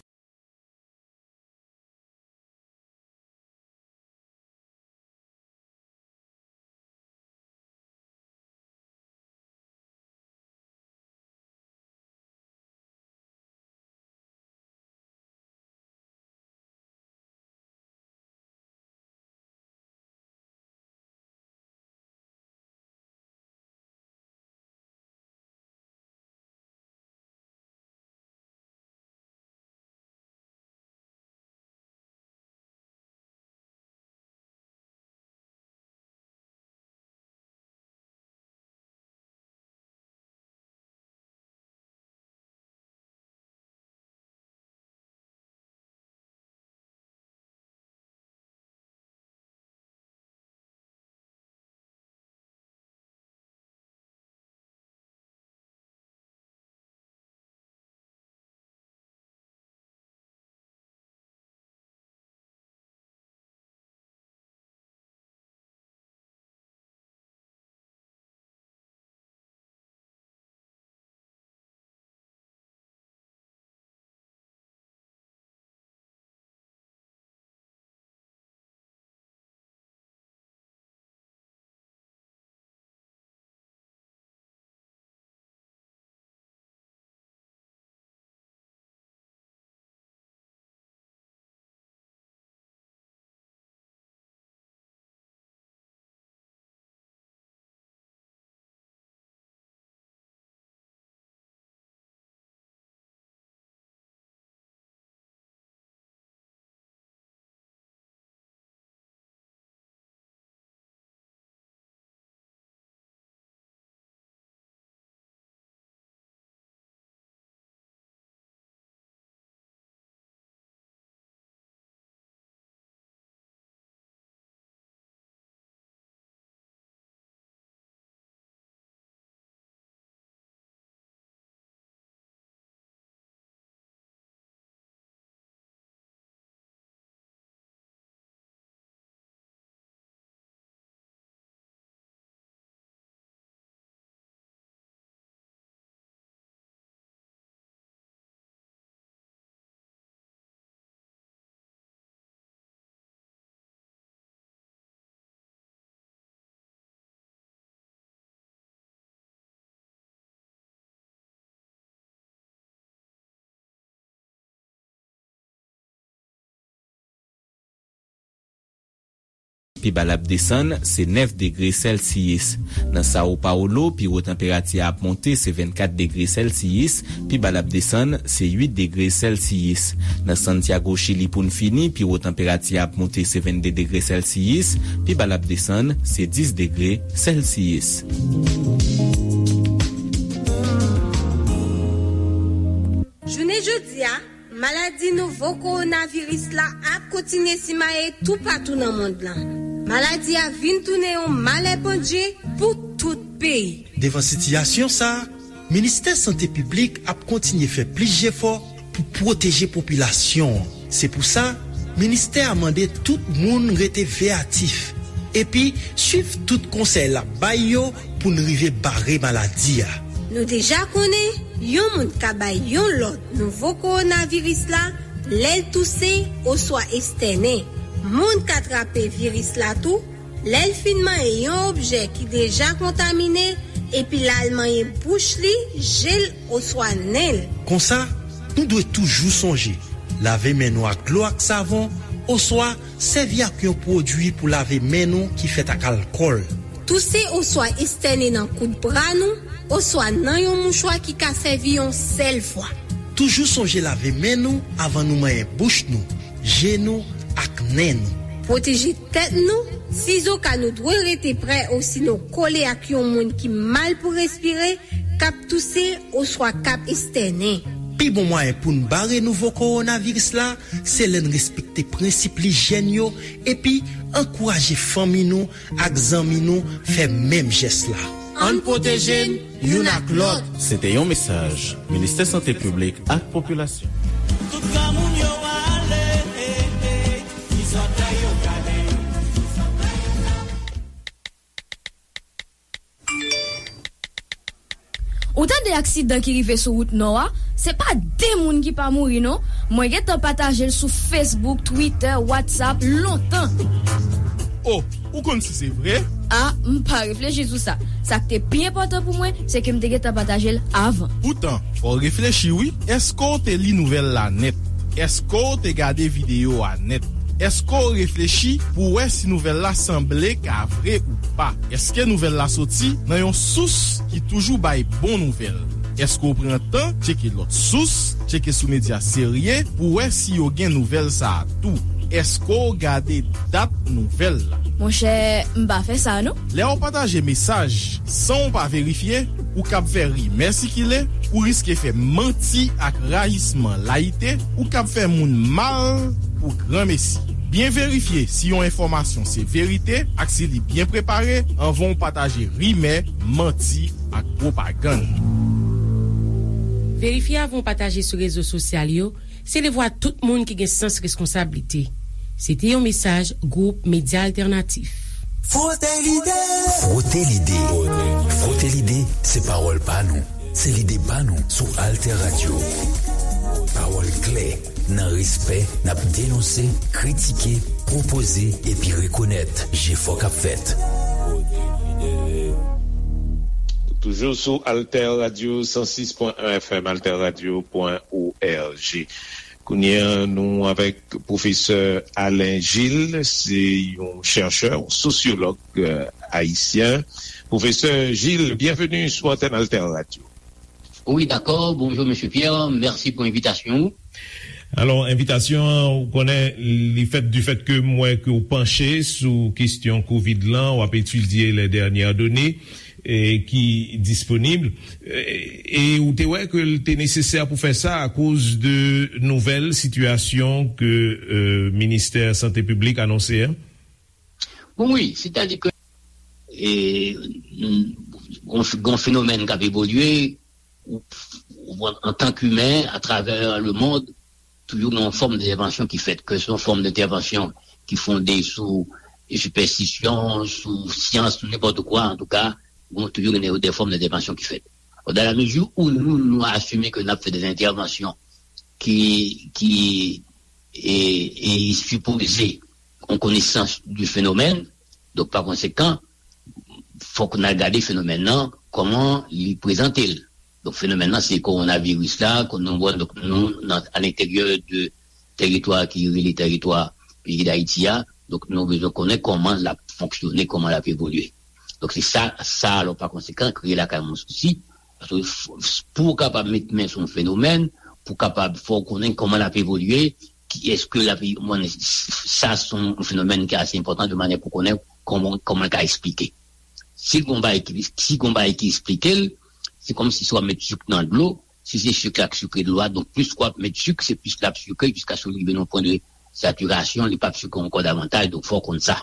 pi ba l ap desann, se nèf degre Sèlsiyis. Nan Sao Paulo, pi wo tanperati a ap monte, se vennkat degre Sèlsiyis, pi ba l ap desann, se uit degre Sèlsiyis. Nan Santiago, Chili, pou n fini, pi wo tanperati a ap monte, se vennde degre Sèlsiyis, pi ba l ap desann, se dis degre Sèlsiyis. Jounen jodi a, maladi nouvo kowonaviris la ap kontinye simaye toupatou nan mond lan. Maladi a vin tounen yon malè pandje pou tout peyi. Devan sitiyasyon sa a, Ministè Sante Piblik ap kontinye fè plis jefò pou pwoteje popilasyon an. Se pou sa, ministè a mande tout moun rete veyatif epi swiv tout konsèy l ap bay yo pou n rive bare maladi a. Nou deja konnen yon moun ka bay yon lòt nouvo kowonaviris la lè l touse oswa estènen. Moun ka trape viris la tou lè l fin manyen yon objè ki deja kontamine epi l al manyen bouch li, je l oswa nen l. Konsa, nou dwe toujou sonje lave men nou ak dlo ak savon oswa sèvi ak yon pwodui pou lave men nou ki fèt ak alkòl. Touse oswa estène nan kout bra nou oswa nan yon mouchwa ki ka sèvi yon sèl fwa. Toujou sonje lave men nou avan nou manyen bouch nou, je nou ak nen nou. Pwoteje tèt nou, sizoka nou dwe rete prè osinon kole ak yon moun ki mal pou respire, k ap touse oswa k ap estènen. Pi bon mwayen pou n bare nouvo kowonaviris la, se lè n respekte prensip lijyèn yo epi ankouraje fanmi nou ak zanmi nou fè menm jès la. Ann pwoteje n youn ak lòt. Se te yon mesaj Ministè Sante Piblik ak Popilasyon. Tout granmoun yo ale, ti zòtèy yo gade. Ou tande aksidan ki rive sou wout nò a? Se pa de moun ki pa mouri non. Mwen gentan pataje l sou Facebook, Twitter, WhatsApp lontan. Oh, ou konn si se vre? Ah, m pa reflechi sou sa. Sa k te pi enpòtan pou mwen, se ke m te gentan pataje l avan. Poutan, fò w reflechi wi. Èske w te li nouvèl la nèt? Èske w te gade videyo a nèt? Èske w reflechi pou w wè si nouvèl la sanble ka vre ou pa? Èske nouvèl la soti nan yon sous ki toujou bay bon nouvèl? Èske w pran tan tcheke lòt sous, tcheke sou medya serye pou w wè si yo gen nouvèl sa a tou? Èske w gade dat nouvèl la? Monchè, m pa fè sa non. Lè w pataje mesaj san w pa verifye, ou kab fè rimè sikile, ou riske fè manti ak rayisman layite, ou kab fè moun mal pou granmesi. Byen verifye si yon enfòmasyon se verite ak si li byen prepare anvan w pataje rimè, manti ak pwopagann. Verifye avan w pataje sou rezo sosyal yo, se devwa tout moun ki gen sans reskonsablite. Se te yon mesaj Gwoup Medya Altènatif. Frote lide. Frote lide. Frote lide, se pawòl pa nou. Se lide pa nou sou Alter Radio. Pawòl klè, nan respè, n ap denonse, kritike, pwopoze epi rekonèt jefò k ap fèt. Toujou sou Alter Radio san sis pwen en F M, alter radio pwen org. Kounye a, nou avèk pwofesè Alain Gilles, se yon chèchè, yon sosyològ, euh, ayisyen. Pwofesè Gilles, byenveni sou antèn Alter Radio. Wi, dakò. Bonjou, mesye Pierre. Mèsi pou envitasyon ou. Alò, envitasyon an, ou konnen, li fèt du fait que m wè ke w panche sou kesyon kovid lan, w ap etidye les dernières données, e, ki disponib. E, e ou te wè ke l te nesesè pou fè sa akoz de nouvèl sitiyasyon ke, e, Ministè Sante Piblik anonse a? Bon, wi, sètadi ke, e, gon, gon fenomèn k ap evolye, ou, ou, antank imen, atravè lemond, toujou gen yon fòm entèvansyon ki fèt, ke se yon fòm entèvansyon ki fonde sou sipèstisyon, sou syans, sou nenpòt kwa, antouka, bon, toujou gen de, de fòm entèvansyon ki fèt. Dans la mesure où nou, nou asime ke n ap fè de entèvansyon ki, ki, e, e sipoze yon konesans du fenomèn, donk, pa konsekan, fòk n al gade fenomèn nan, kòman li prezante l. Donk, fenomèn nan, se kowonaviris la, ke nou wè, donk, nou, nan, a lenteryè de teritwa ki rele teritwa peyi Dayiti a, Donk, nou bezwen konnen kòman l ap fonksyone, kòman l ap evolye. Donk, se sa, sa, alò, pa konsekan, kreye lakay mwen sousi. Paske f- f- pou w kapab met men sou yon fenomèn, pou w kapab fè w konnen kòman l ap evolye, ki èske l ap, mwen, sa se yon fenomèn ki ase enpòtan de manyè pou konnen kòman, kòman l ka eksplike. Si gon bagay ki, si gon bagay ki eksplike l, se kòmsi si w ap met sik nan dlo, si se sik la k sikre dlo a, donk plis w ap met sik, se plis l ap sikre jiskaske l rive nan pwen de satirasyon, li p ap sikre ankò davantaj, donk fò w konn sa.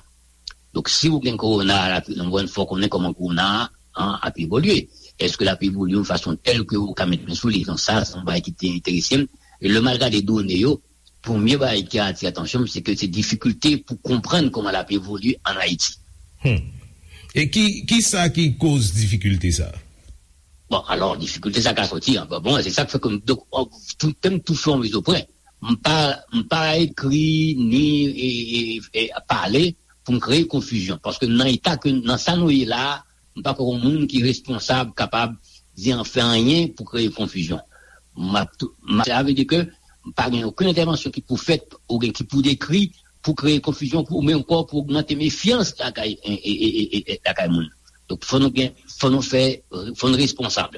Donk si w gen kowona a, l ap, fò w konnen kòman kowona a ap evolye. Èske l ap evolye yon fason tèl ke ou ka met men sou li? Donk sa, se yon bagay ki te enterese m. E lè m al gade done yo, premye bagay ki atire atansyon m, se ke se difikilte pou konprann kòman l ap evolye ann Ayiti. Hmm. E ki, ki sa ki koz difikilte sa? Bon, alò, difikilte sa ka soti an. Bon, bon, se sa k fè ke m, donk, tou, te m tou fè yon mizopwen. M pa, m pa ekri ni e, e, e pale pou m kreye konfizyon. Paske nan eta ke, nan sa nou ye la a, m pa kwè yon moun ki responsab kapab di an fè anyen pou kreye konfizyon. M ap tou, m ap, sa vle di ke m pa gen okenn entèvansyon ki pou fèt oubyen ki pou dekri pou kreye konfizyon, pou, men ankò pou ogmante mefyans lakay, e, e, e, e, e, lakay moun. Donk, fò nou gen, fò nou fè, fò nou responsab.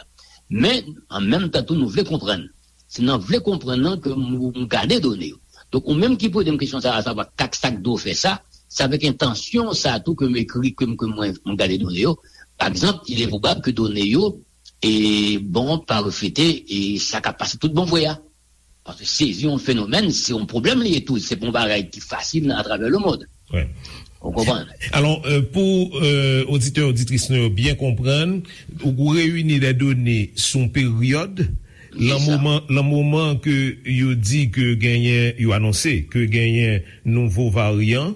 Men, an menm tan tou, nou vle konprann. Se nan vle konprann nan ke m, m gade done yo. Donk, ou menm ki poze m kesyon sa a, savwa kak sa k dwe w fè sa, se avèk entansyon sa a tou ke m ekri, ke m, ke mwen, m gade done yo. Pa egzanp, il est probable ke done yo, e bon, pa reflete, e sa k ap pase tout bon vre a. Paske sezi yon fenomèn, se yon pwoblèm li ye tou. Se pa yon bagay ki fasil atravè lemonn. Wi. Ou konprann? Alò, euh, pou euh, oditè, oditris nou yo byen konprann, ou reyini de done sou yon peryòd, lan moman, lan moman ke yo di ke genyen, yo anonse ke genyen nouvo varyan,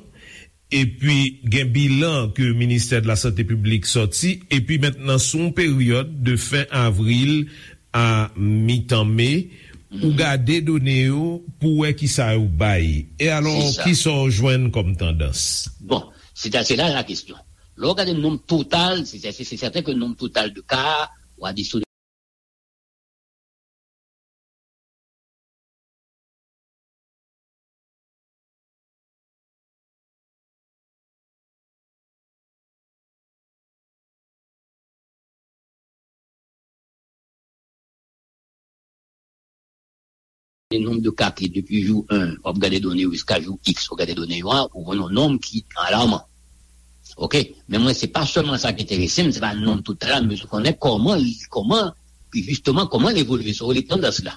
epi gen bilan ke Ministè de la Santé Piblik sòti, epi mentnan sou yon peryòd de fen avril a mitan me, ou gade done yo pou wè kisa yo bay. E alò, kisa w jwenn kòm tandans? Bon, se ta, se la la kesyon. Lè w gade nonb total, se, se, se sèten ke nonb total de ka, w a di sou le nonb de ka ki depi jou en, w ap gade done yo jiska jou X, w ap gade done yo a, ou jwenn yon nonb ki alaman. Oke? Men mwen, se pa sèlman sa ki enterese m, se pa nonb total la, men se konnen kòman li, kòman, jisteman, kòman l evolye, sa w rele tandans la.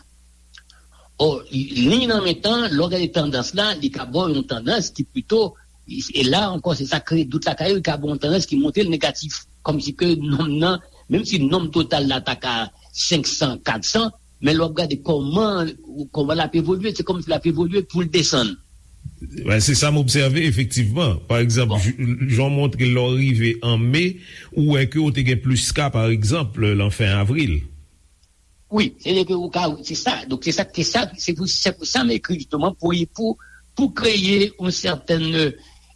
Ò, li nan men tan, lè w gade tandans la, li ka ba w yon tandans ki pito, e la ankò, se sa kreye dout lakay yo, li ka ba w yon tandans ki montre l negatif. Kòmsi ke nonb nan, menm si nonb total la ta ka senk san, kat san, men lè w ap gade kòman, kòman l ap evolye, se kòmsi l ap evolye pou l desann. Ben, se sa m obsève, efektivman. Pa egzanp, j- jan w montre lè w rive an me, ou wè ke w te gen plis ka, pa egzanp, lan fen avril. Wi, se ke ou ka, se sa. Donk, se sa, se sa, se pou, se pou sa m ekri, jisteman, pou, pou, pou kreye yon sètèn,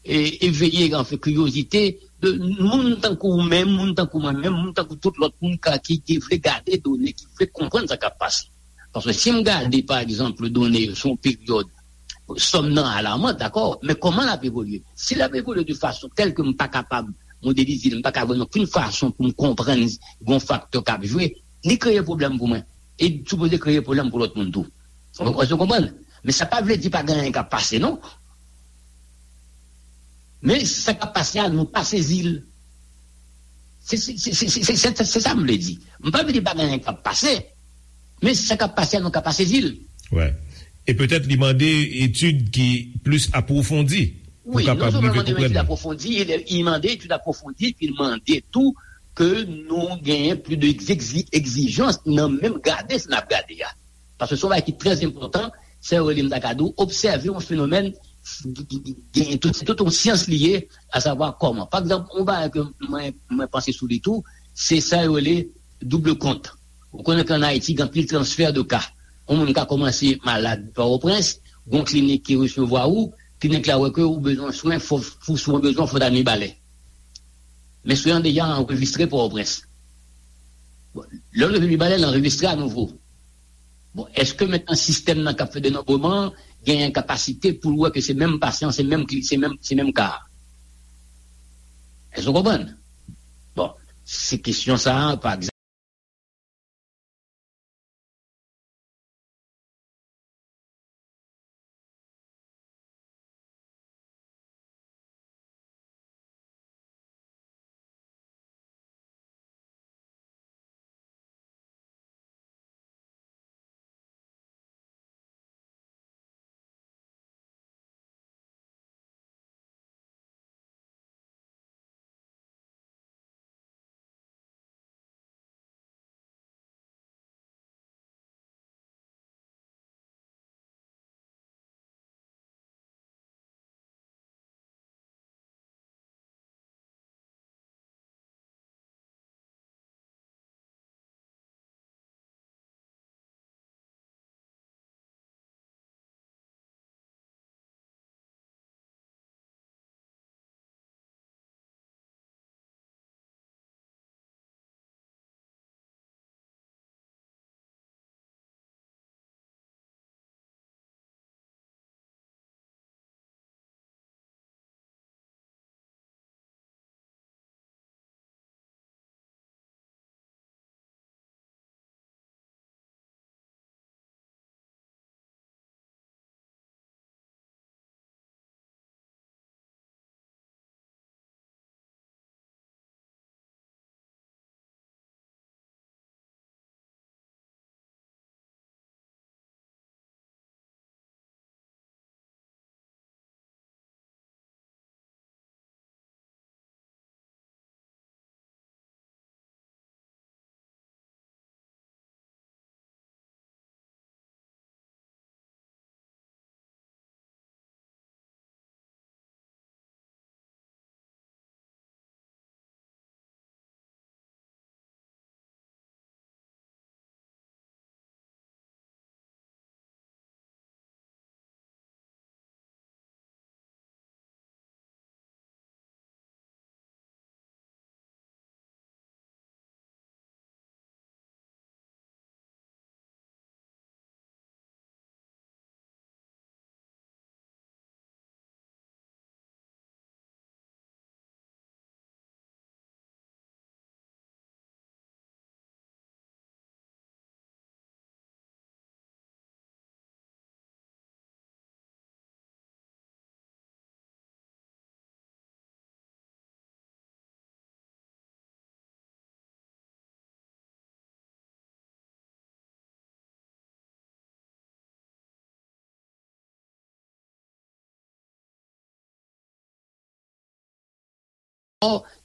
e, eveye, anfen, kiryozite de moun tankou ou menm, moun tankou mwen menm, moun tankou tout lòt moun ka, ki, ki vle gade done, ki vle konprann sa k ap pase. Paske si m gade, pa egzanp, done yo sou yon peryòd, sòm nan alaman, dakò, men kòman l ap evolye? Si l ap evolye de fason tèl ke m pa kapab modelize l, m pa ka jwenn okenn fason pou m konprann yon faktè k ap jwe, li kreye pwoblèm pou mwen. E li sipoze kreye pwoblèm pou lòt moun tou. Ou, ou konprann? Men sa pa vle di pa gen anyen k ap pase, non. Men sa k ap pase a, nou pa sezi l. Se, se, se, se, se, se, se, se sa m vle di. M pa vle di pa gen anyen k ap pase, men sa k ap pase a, nou ka pa sezi l. Wi. E petèt li mande etid ki plis apwofondi pou kapab rive konprann. Wi, non sèlman li mande etid apwofondi, li, li mande etid apwofondi, epi li mande tou ke nou genyen plis de egzi- egzijans nan menm gade sa n ap gade a. Paske se yon bagay ki trè enpòtan, se rele m ta ka di w, obsève yon fenomèn ki, ki, ki genyen tout, se tout yon syans li ye, asavwa kòman. Pa egzanp, yon bagay ke mwen, mwen panse sou li tou, se sa yo rele double kont. Ou konnen ke ann Ayiti, gen anpil transfè de ka. Yon moun ka kòmanse malad Pòtoprens, gon klinik ki resevwa ou, klinik la wè ke ou bezwen swen, fò, pou swen w bezwen, fò w ta Mibalè. Men swen an deja anrejistre Pòtoprens. Bon, lè w rive Mibalè, l anrejistre anouvo. Bon, èske mentnan sistèm nan k ap fè denonbreman, genyen kapasite pou l wè ke se menm pasyan, se menm, se menm, se menm ka. Èske w konprann? Bon, se kesyon sa a, pa egzanp.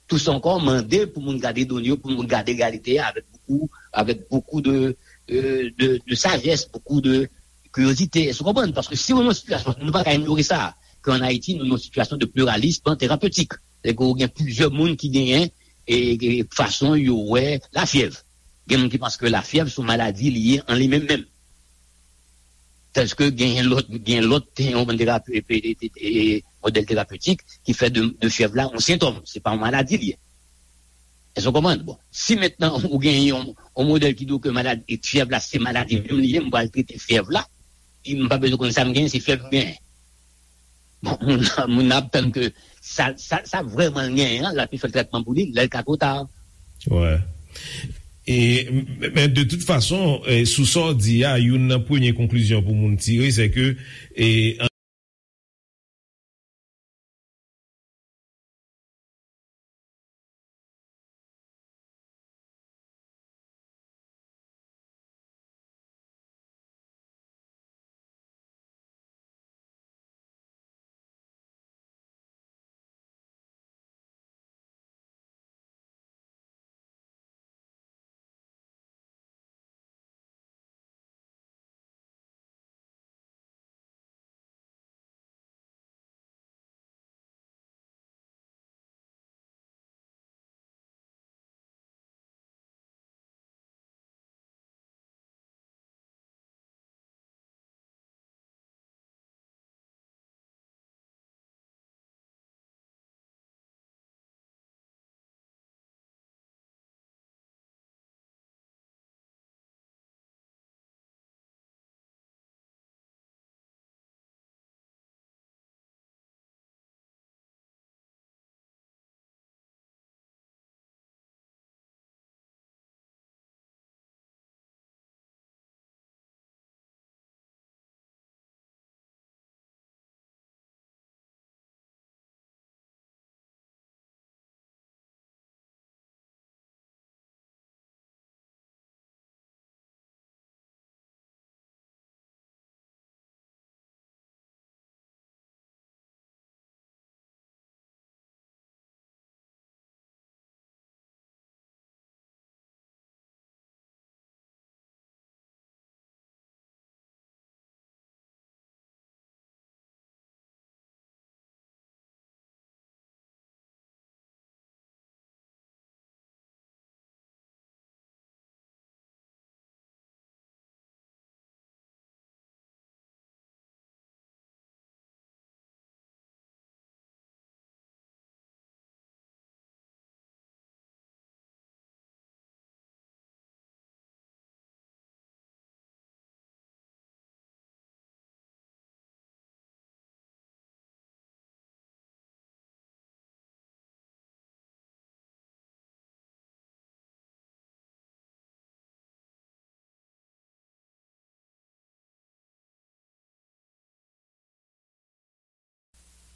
Toussaint ankò mande pou moun gade done yo, pou moun gade reyalite a avèk bokou, avèk bokou de, euh, de, de sajès, bokou de kiryozite. Èske w konprann? Paske si w nan yon sitiyasyon, nou pa ka inyore sa, ke an Ayiti, nou nan yon sitiyasyon de pluralisme thérapeutique. Sètadi ke w gen plizyè moun ki genyen e, e fason yo wè lafyèv. Gen moun ki panse ke lafyèv se yon maladi li ye an li menm menm. Tandis ke gen lòt, gen lòt, yon bann terapi, e, e, e, e, modèl terapeutik ki fè de, de fyèv la yon sentòm. Se pa yon maladi li ye. Èske w konprann? Bon, si mentnan ou gen yon, yon modèl ki di w ke maladi, e fyèv la se maladi menm li ye, m pral trete fyèv la, e m pa bezwen konn sa m genyen, se fyèv m genyen. Bon, moun nan, moun nan ap tann ke sa, sa, sa vrèman l genyen an, l ap fè l trètman pou li, lè l ka twò ta. Wè. E, men de tout fason, e, sou sa w di a, youn nan premye konklizyon pou moun tire, se ke, e,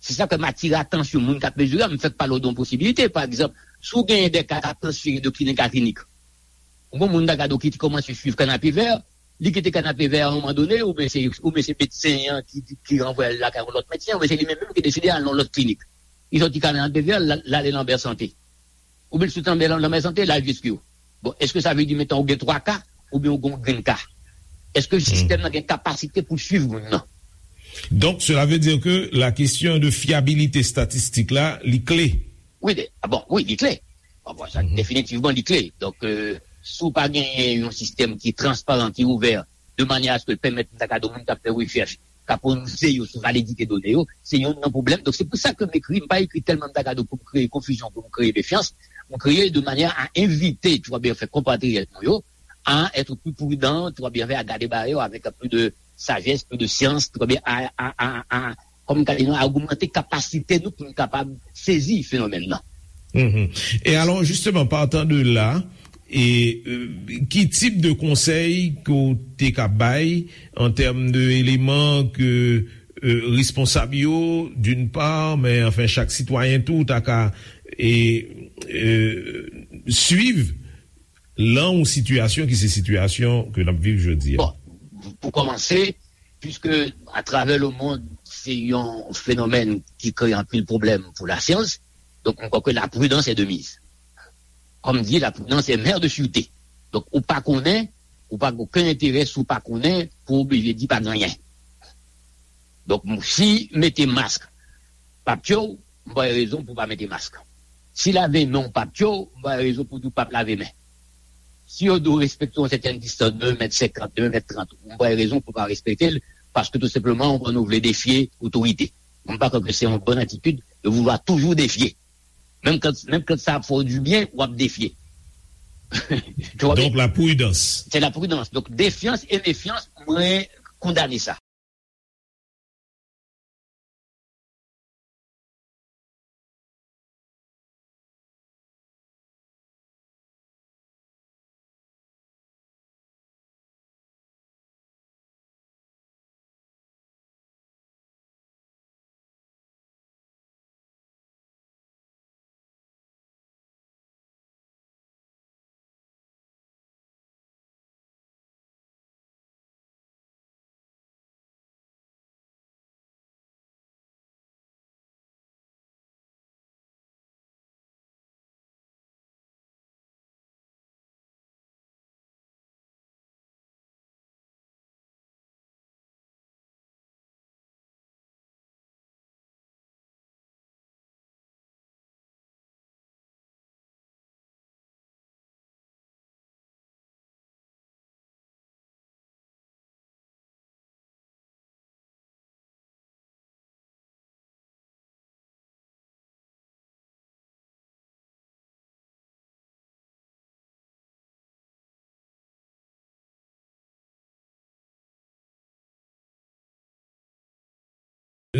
Se sa k fè m atire atansyon moun k ap mezire a, m fèk pale w de yon posibilite. Pa egzanp, si w genyen de ka k ap transfere de klinik a klinik, ou gen moun Dagado ki te kòmanse swiv Kanapevè, li kite Kanapevè a yon moman done, oubyen se, oubyen se medsen an ki, ki ranvwaye l lakay yon lòt medsen, oubyen se li menm menm ki deside al nan yon lòt klinik. Li sòti Kanapevè, l al, l ale Lanbè Sante. Oubyen l sot anba lanmè sante, l al Vyestriyo. Bon, èske sa vle di mentnan ou gen twa ka, oubyen ou gen yon grenn ka? Èske sistèm nan gen kapasite pou l swiv moun nan? Donc, cela veut dire que la question de fiabilité statistique là, li kle. Wi, de, ah bon, wi, li kle. Bon, bon, sa, definitivman, li kle. Donk, euh, si w pa genyen yon sistèm ki transparan, ki ouvè, de manyè a se ke l pèmèt m ta ka di w moun k ap fè rechèch, ka pwononse yo sou validite done yo, se youn nan pwoblèm. Donk, se pou sa ke m ekri, m pa ekri tèlman m ta ka di w pou m kreye konfizyon, pou m kreye mefyans. M kreye de manyè a envite, tu vois bien, fè konpatriyòt nou yo, a être plus prudent, tu vois bien, a gade bagay yo avèk plus de sagesse, plus de science, tu vois bien, a, a, a, a, kòm m ka di nou, a ogmante kapasite nou pou nou kapab sezi fenomèn nan. Mhm. Et alors, justement, partant de là, e, euh, ki tip de konsèy ke w te ka bay an tèm de eleman ke, euh, responsab yo, d'une part, men anfen, chak sitwayen tou, ta ka, e, euh, swiv lan yon sitiyasyon ki se sitiyasyon ke n ap viv jodi a? Bon, pou kòmanse, puiske atravè le monde, se yon fenomèn ki kreye anpil pwoblèm pou lasyans, donk, m kwè ke la prudence est de mise. Kòm di, la prudence est mère de sûreté. Donk, ou pa konnen, ou pa gen okenn enterè si w pa konnen, pou w oblije di pa gen anyen. Donk, si mete mask pa tye w, m pa wè rezon pou w pa mete mask. Si lave men w pa tye w, m pa wè rezon pou w di w p ap lave men. Si yo di w respekte yon sètèn distans, de mèt senkant, de mèt trant, m pa wè rezon pou w pa respekte l, paske tou senpleman, ou konn ou vle defye otorite. M pa kwè ke se yon bòn atitid de vouloir toujours défier. Menm kan, menm kan sa ap fè w du bien, w ap defye. Tu vois bien? Donc, la prudence. C'est la prudence. Donk, defyans e mefyans, mwen kondane sa.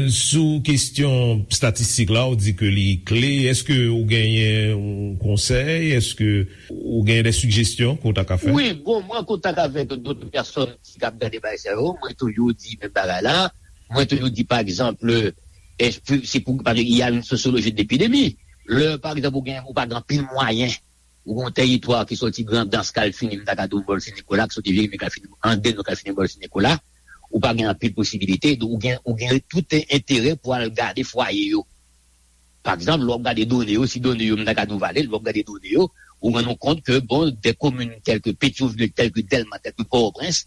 Sou kesyon statistik la, ou di ke li kle. Èske ou genyen yon konsèy? Èske ou genyen de sijesyon ke w ta ka fè? Wi, bon, mwen an kontak avèk dòt pèsòn ki ap gade bagay sa yo, mwen toujou di menm bagay la. Mwen toujou di, pa egzanp, e, se pou, paske il y a une sociologie de l'épidémie. Lè, pa egzanp, ou gen, ou pa gen anpil mwayen, ou gen yon tèritwa ki soti Grandans, k al fini, m ta ka di w, Bòl Sen Nikola, ki soti Jeremi, k al fini Andeno, k al fini Bòl Sen Nikola, ou pa gen anpil posibilite, donk ou gen, ou gen tout enterè pou al gade fwaye yo. Pa egzanp, lè w ap gade done yo, si done yo, m ta ka di w valid, lè w ap gade done yo, ou rann ou kont ke, bon, des communes telles que Pétion-Ville, telles que Dèlma, telles que Pòtoprens,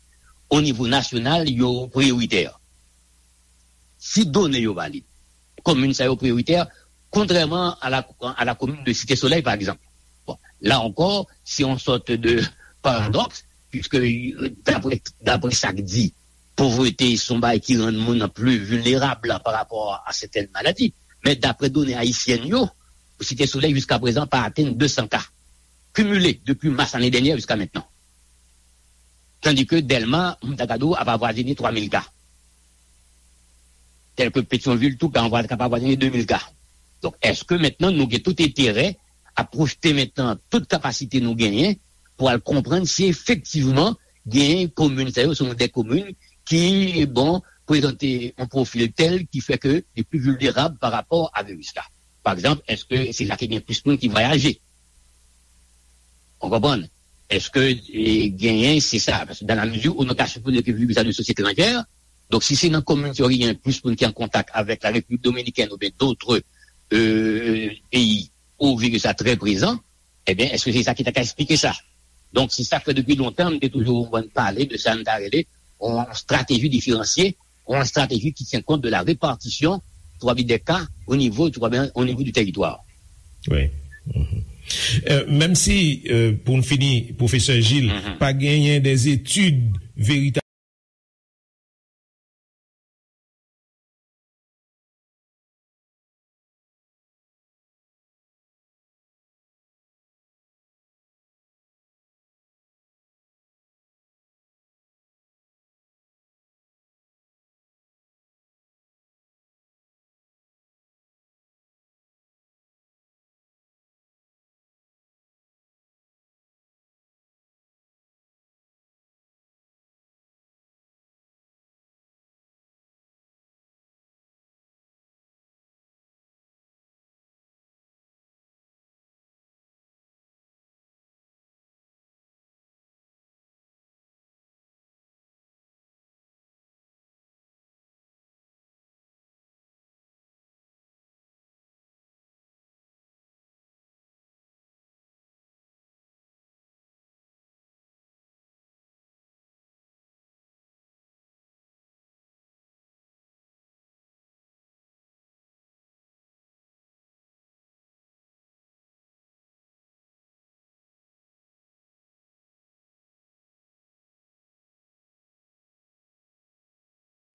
au niveau national, yo priyoritè. Si done yo valid, komin sa yo priyoritè, kontrèman a la, a la komin de Site Solèy, pa egzanp. Bon, la ankò, se yon sòt de paradòks, puiske, euh, daprè, daprè sa k di, povrete se yon bagay ki rann moun pli vilnerab pa rapò a sètèn maladi. Men daprè done ayisyèn yo, Site Solèy jiskaprezan pa atenn de san ka, kimile depi mas lane dènyè jiska mentnan. Tandis que Dèlma, m ta ka di w, ap avwazine twa mil ka. Tel que Pétion-Ville tou ka anvwa-, ka ap avwazine de mil ka. Donk, èske mentnan nou gen tout enterè a pwojte mentnan tout kapasite nou genyen pou al konprann si efektivman genyen komin sa yo, se yon de komin ki, bon, prezante yon pwofil tèl ki fè ke li pli vilnerab pa rapò a viris la. Pa egzanp, èske se la ki gen plis moun ki vwayaje? Ou konprann? Èske, e, genyen, se sa? Paske dans la mesure où nou ka sipoze ke viris la nou soti etranjè, donk si se nan kominotè yo ki gen plis moun ki an kontak avèk la Repiblik Dominikèn oubyen dòt, e, peyi, ou viris la trè prezan, ebyen, èske se sa ki ta ka esplike sa? Donk, se sa k fè depi lontan, m te toujou konprann pale de sa n ta rele yon strateji diferansye, yon strateji ki tyen kont de la repartisyon, twa bi dè ka, o nivo, twa bi, o nivo di tèritwa. Wi. Mhm. Euh, menm si, euh, pou n fini, pwofesè Gilles, pa genyen des études véritablement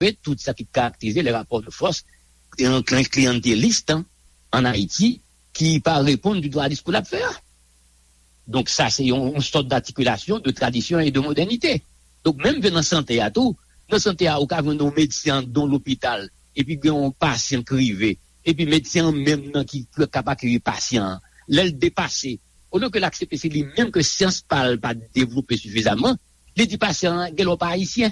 Tout sa ki karakterize le rapò de fòs, e, kli-, kliyantelis an Ayiti ki pa reponn ditou a diskou l ap fè a. Donk, sa se yon, yon sòt d'articulation de tradition et de modernité. Donk, menm ke nan sante a tou, nan sante a, ou ka jwenn yon medsen anndan yon lopital, epi gen yon pasyan k rive, epi medsen an menm nan ki k ap akeyir pasyan an. Lè l depase, olye ke l aksepte se li menm ke syans pa l pa devlope sifizaman, li di pasyan an, "Genlè w pa ayisyen."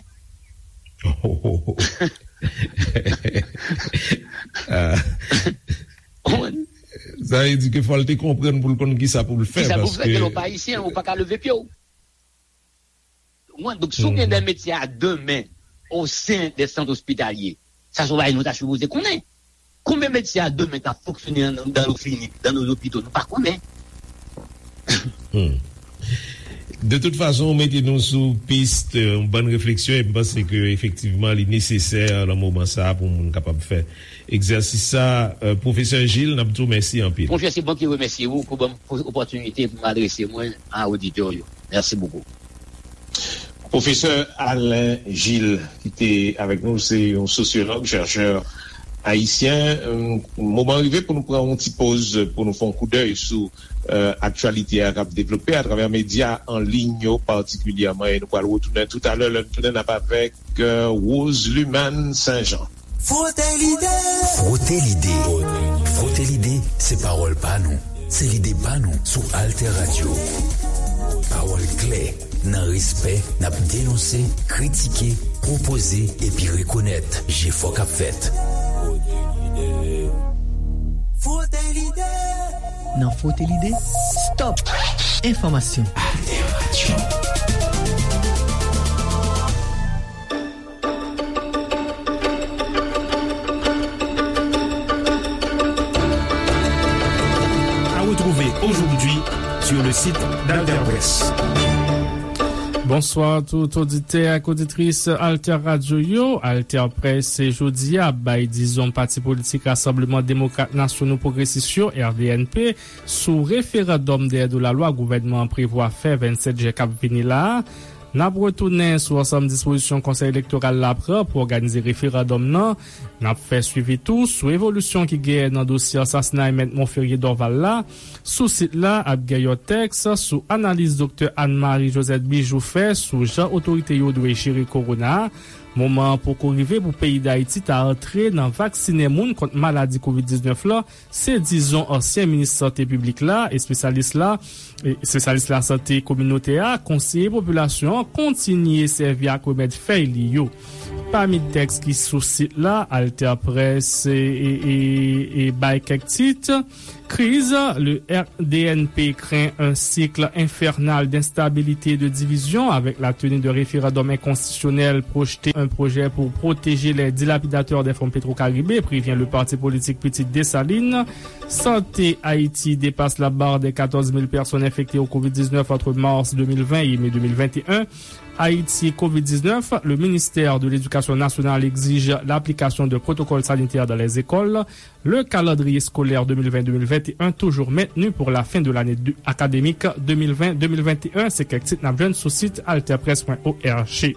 Ah. Ou konprann? Sa vle di ke fò l te konprann pou l konn kisa pou l fè, kisa pou l fè, paske genlè w pa ayisyen, ou pa ka leve pye w. Ou konprann? Donk, si w gen de medsen a demen o sen de sant ospitalye, sa se yon bagay nou ta sipoze konnen. Konbyen medsen a demen k ap fonksyone nan, nan nos cliniques, dans nos hôpitaux, nou pa konnen. Hmm. De tout fason, ou mete nou sou pis, euh, yon bann refleksyon, e m panse ke efektivman li nesesè nan moman sa a pou moun kapab fè egzèsis sa. Euh, pwofesè Gilles, n ap di w mèsi anpil. Monchè, se mwen ki remèsye ou pou ban m opòtinite pou m adrese mwen a oditè yo. Mèsi bokou. Pwofesè Alain Gilles, ki te avèk nou, se yon sosyològ, chèchè ayisyen. Moman rive pou nou pran yon ti poz, pou nou fè yon koudèy sou, euh, aktyalite a k ap devlope atravè medya an liy yo patikilyèman. E nou pral retounen toutalè, lè n tounen, n ap avèk, euh, Rose Lumane Saint-Jean. Frote lide. Frote lide. Frote lide, se pawòl pa nou. Se lide pa nou sou Alter Radio. Pawòl klè, nan respè, n ap denonse, kritike, pwopoze epi rekonèt jefò k ap fèt. Frote lide. Nan Frote lide, stop enfòmasyon. Alter Radio. À retrouver aujourd'hui sur le site d'Alter Presse. Bonswa tout oditè ak oditris Alter Radio yo. Alter Presse jodi a ap bay dizon pati politik Rasanbleman Demokrat Nasyonal Pwogresis yo, R D N P, sou referandòm dèyè do lalwa gouvènman an prevwa fè vennsèt jen k ap vini la a. N ap retounen sou ansanm dispozisyon Konsèy Elektoral la pran pou òganize referandòm nan. N ap fè swivi tou sou evolisyon ki genyen nan dosye ansasinay Mèt Monferrier Dorval la. Sou sit la ap gen yon tèks sou analiz Doktè Anne Marie Josette Bijou fè sou jan otorite yo dwe jere kowona a. Moman an poko rive pou peyi Dayiti ta antre nan vaksinen moun kont maladi kovid diznèf la, se dizon ansyen minis sante piblik la, espesyalis la, e, espesyalis lasante kominotè a, konseye popilasyon an kontinye sèvi ak remèd fèy li yo. Pami tèks ki sou sit la, Alter Press e, e, e, e bay kèk tit. Kriz, le R D N P craint un cycle infernal d'instabilité et de division avec la tenue de référendums inconstitutionnels, projeter un projet pour protéger les dilapidateurs des fonds Petro-Caribe, prévient le parti politique Pitit Desalin. Santé, Haïti dépasse la barre des quatorze mille personnes infectées au covid dix-neuf entre mars deux mille vingt et mai deux mille vingt et un. Haïti covid dix-neuf, le ministère de l'Éducation nationale exige l'application de protocoles sanitaires dans les écoles. Le calendrier scolaire deux mille vingt deux mille vingt et un toujours maintenu pour la fin de l'année de- académique deux mille vingt deux mille vingt et un. Se kèk tit n ap jwenn sou sit alterpresse point org.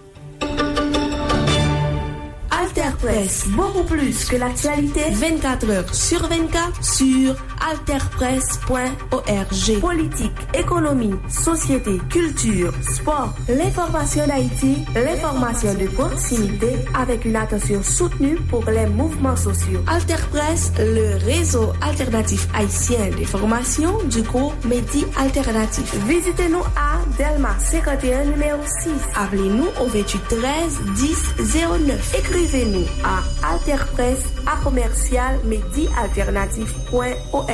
Alter Presse, beaucoup plus que l'actualité. Vingt-quatre heures sur vingt-quatre sur alterpresse point org. Politique, économie, société, culture, sport, l'information d'Haïti, l'information de proximité avec une attention soutenue pour les mouvements sociaux. Alter Presse, le réseau alternatif haïtien d'information du groupe Medi Alternatif. Visitez-nous à Delma cinquante et un, numéro six. Appelez-nous au vingt-huit treize dix zéro neuf. Écrivez-nous à alterpresse à commercial medi alternatif point org.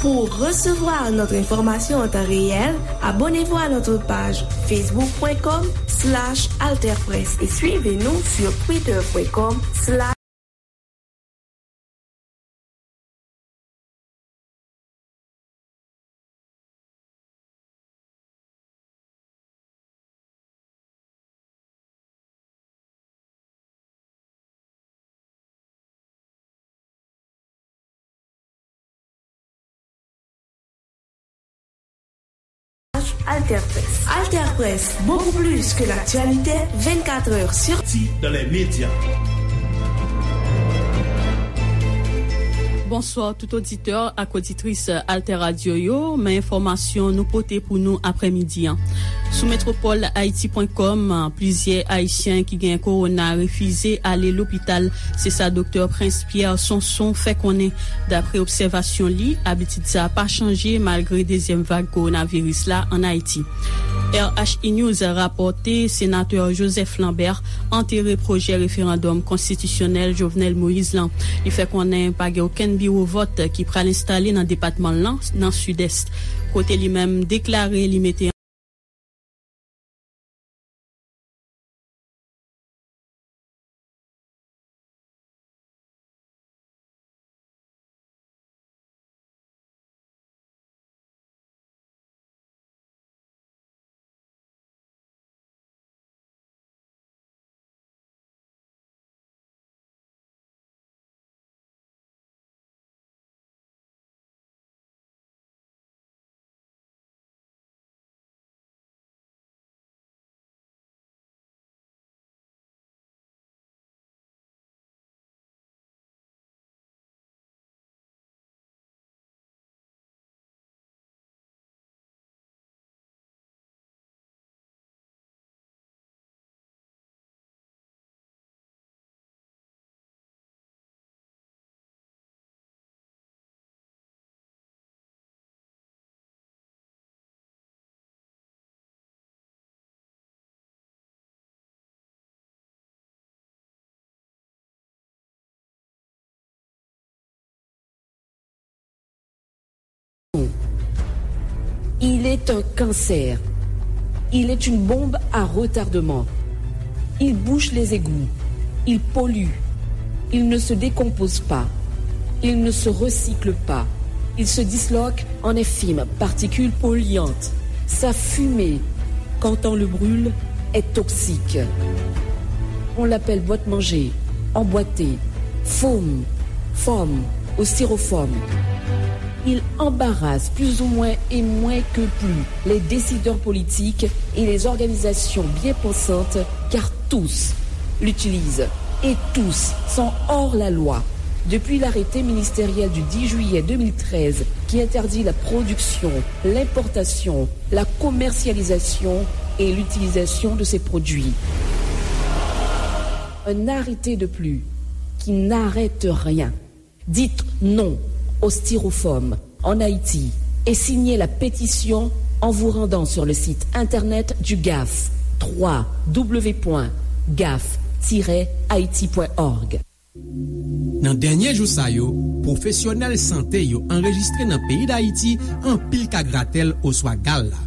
Pour recevoir notre information en temps réel, abonnez-vous à notre page facebook point com slash alterpresse et suivez-nous sur twitter point com slash Alter Presse. Alter Presse, beaucoup plus que l'actualité, vingt-quatre heures sur Ti dans les médias. Bonswa tout oditè ak oditris Alter Radio yo, men enfòmasyon nou pote pou nou aprèmidi an. Sou metropol haiti point com, plizyè Ayisyen ki gen kowona refize ale lopital, se sa Doktè Prince Pierre Sonson fè konnen. Daprè obsèvasyon li, abitid sa a pa chanje malgre dezyèm vag kowonaviris la ann Ayiti. R H I News rapòte Senatè Joseph Lambert antere pwojè referandòm konstitisyonèl Jovenel Moïse lan. Li fè konnen pa gen okenn biwo vòt ki pral enstale nan depatman l lan, nan Sidès, kote li menm deklare li mete Il est un cancer. Il est une bombe à retardement. Il bouche les égouts. Il pollue. Il ne se décompose pas. Il ne se recycle pas. Il se disloque en infimes particules polluantes. Sa fumée, quand on le brûle, est toxique. On l'appelle boîte-manger, emboîté, foam, foam ou styrofoam. Il embarrasse plus ou moins et moins que plus les décideurs politiques et les organisations bien pensantes, car tous l'utilisent et tous sont hors la loi. Depuis l'arrêté ministériel du dix juillet deux mille treize qui interdit la production, l'importation, la commercialisation et l'utilisation de ces produits. Un arrêté de plus qui n'arrête rien. Dites non au styrofoam en Haïti et signez la pétition en vous rendant sur le site internet du gaf, trois w point gaf tiret haiti point org. Nan dènye jou sa yo, pwofesyonèl sante yo anrejistre nan peyi Dayiti anpil ka gratèl oswa gal la.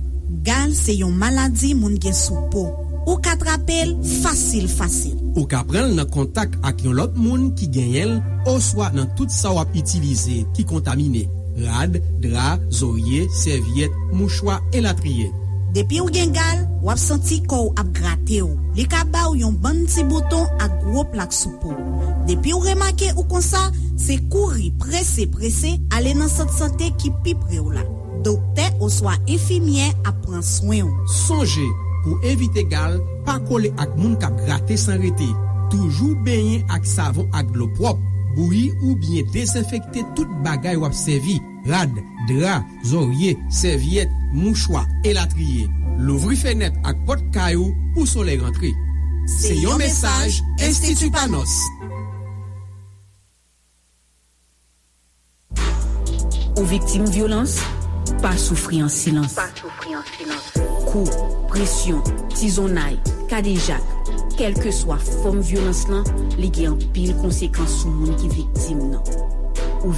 Gal se yon maladi moun gen sou po. Ou ka trape l fasil, fasil. Ou ka pran l nan kontak ak yon lòt moun ki genyen l oswa nan tout sa w ap itilize ki kontamine, rad, dra, zorye, sèvyèt, mouchwa, elatriye. Depi w gen gal, w ap santi kò w ap grate w. Li ka ba w yon bann ti bouton ak gwo plak sou po w. Depi w remake ou konsa, se kouri prese, prese ale nan sant sante ki pi pre w la. Doktè oswa enfimyè ap pran swen w. Sonje, pou evite gal, pa kole ak moun k ap grate san rete. Toujou benyen ak savon ak dlo pwòp. Bouyi oubyen dezenfekte tout bagay w ap sèvi, rad, dra, zorye, sèvyèt, mouchwa, elatriye. Louvri fenèt ak pòt kay ou pou solèy rantre. Se yon mesaj Enstiti Panos. Ou viktim vyolans? Pa soufri an silans. Kou, presyon, tizonnay, kadejak, kèlkeswa fòm vyolans lan, li gen anpil konsekans sou moun ki viktim nan. Ou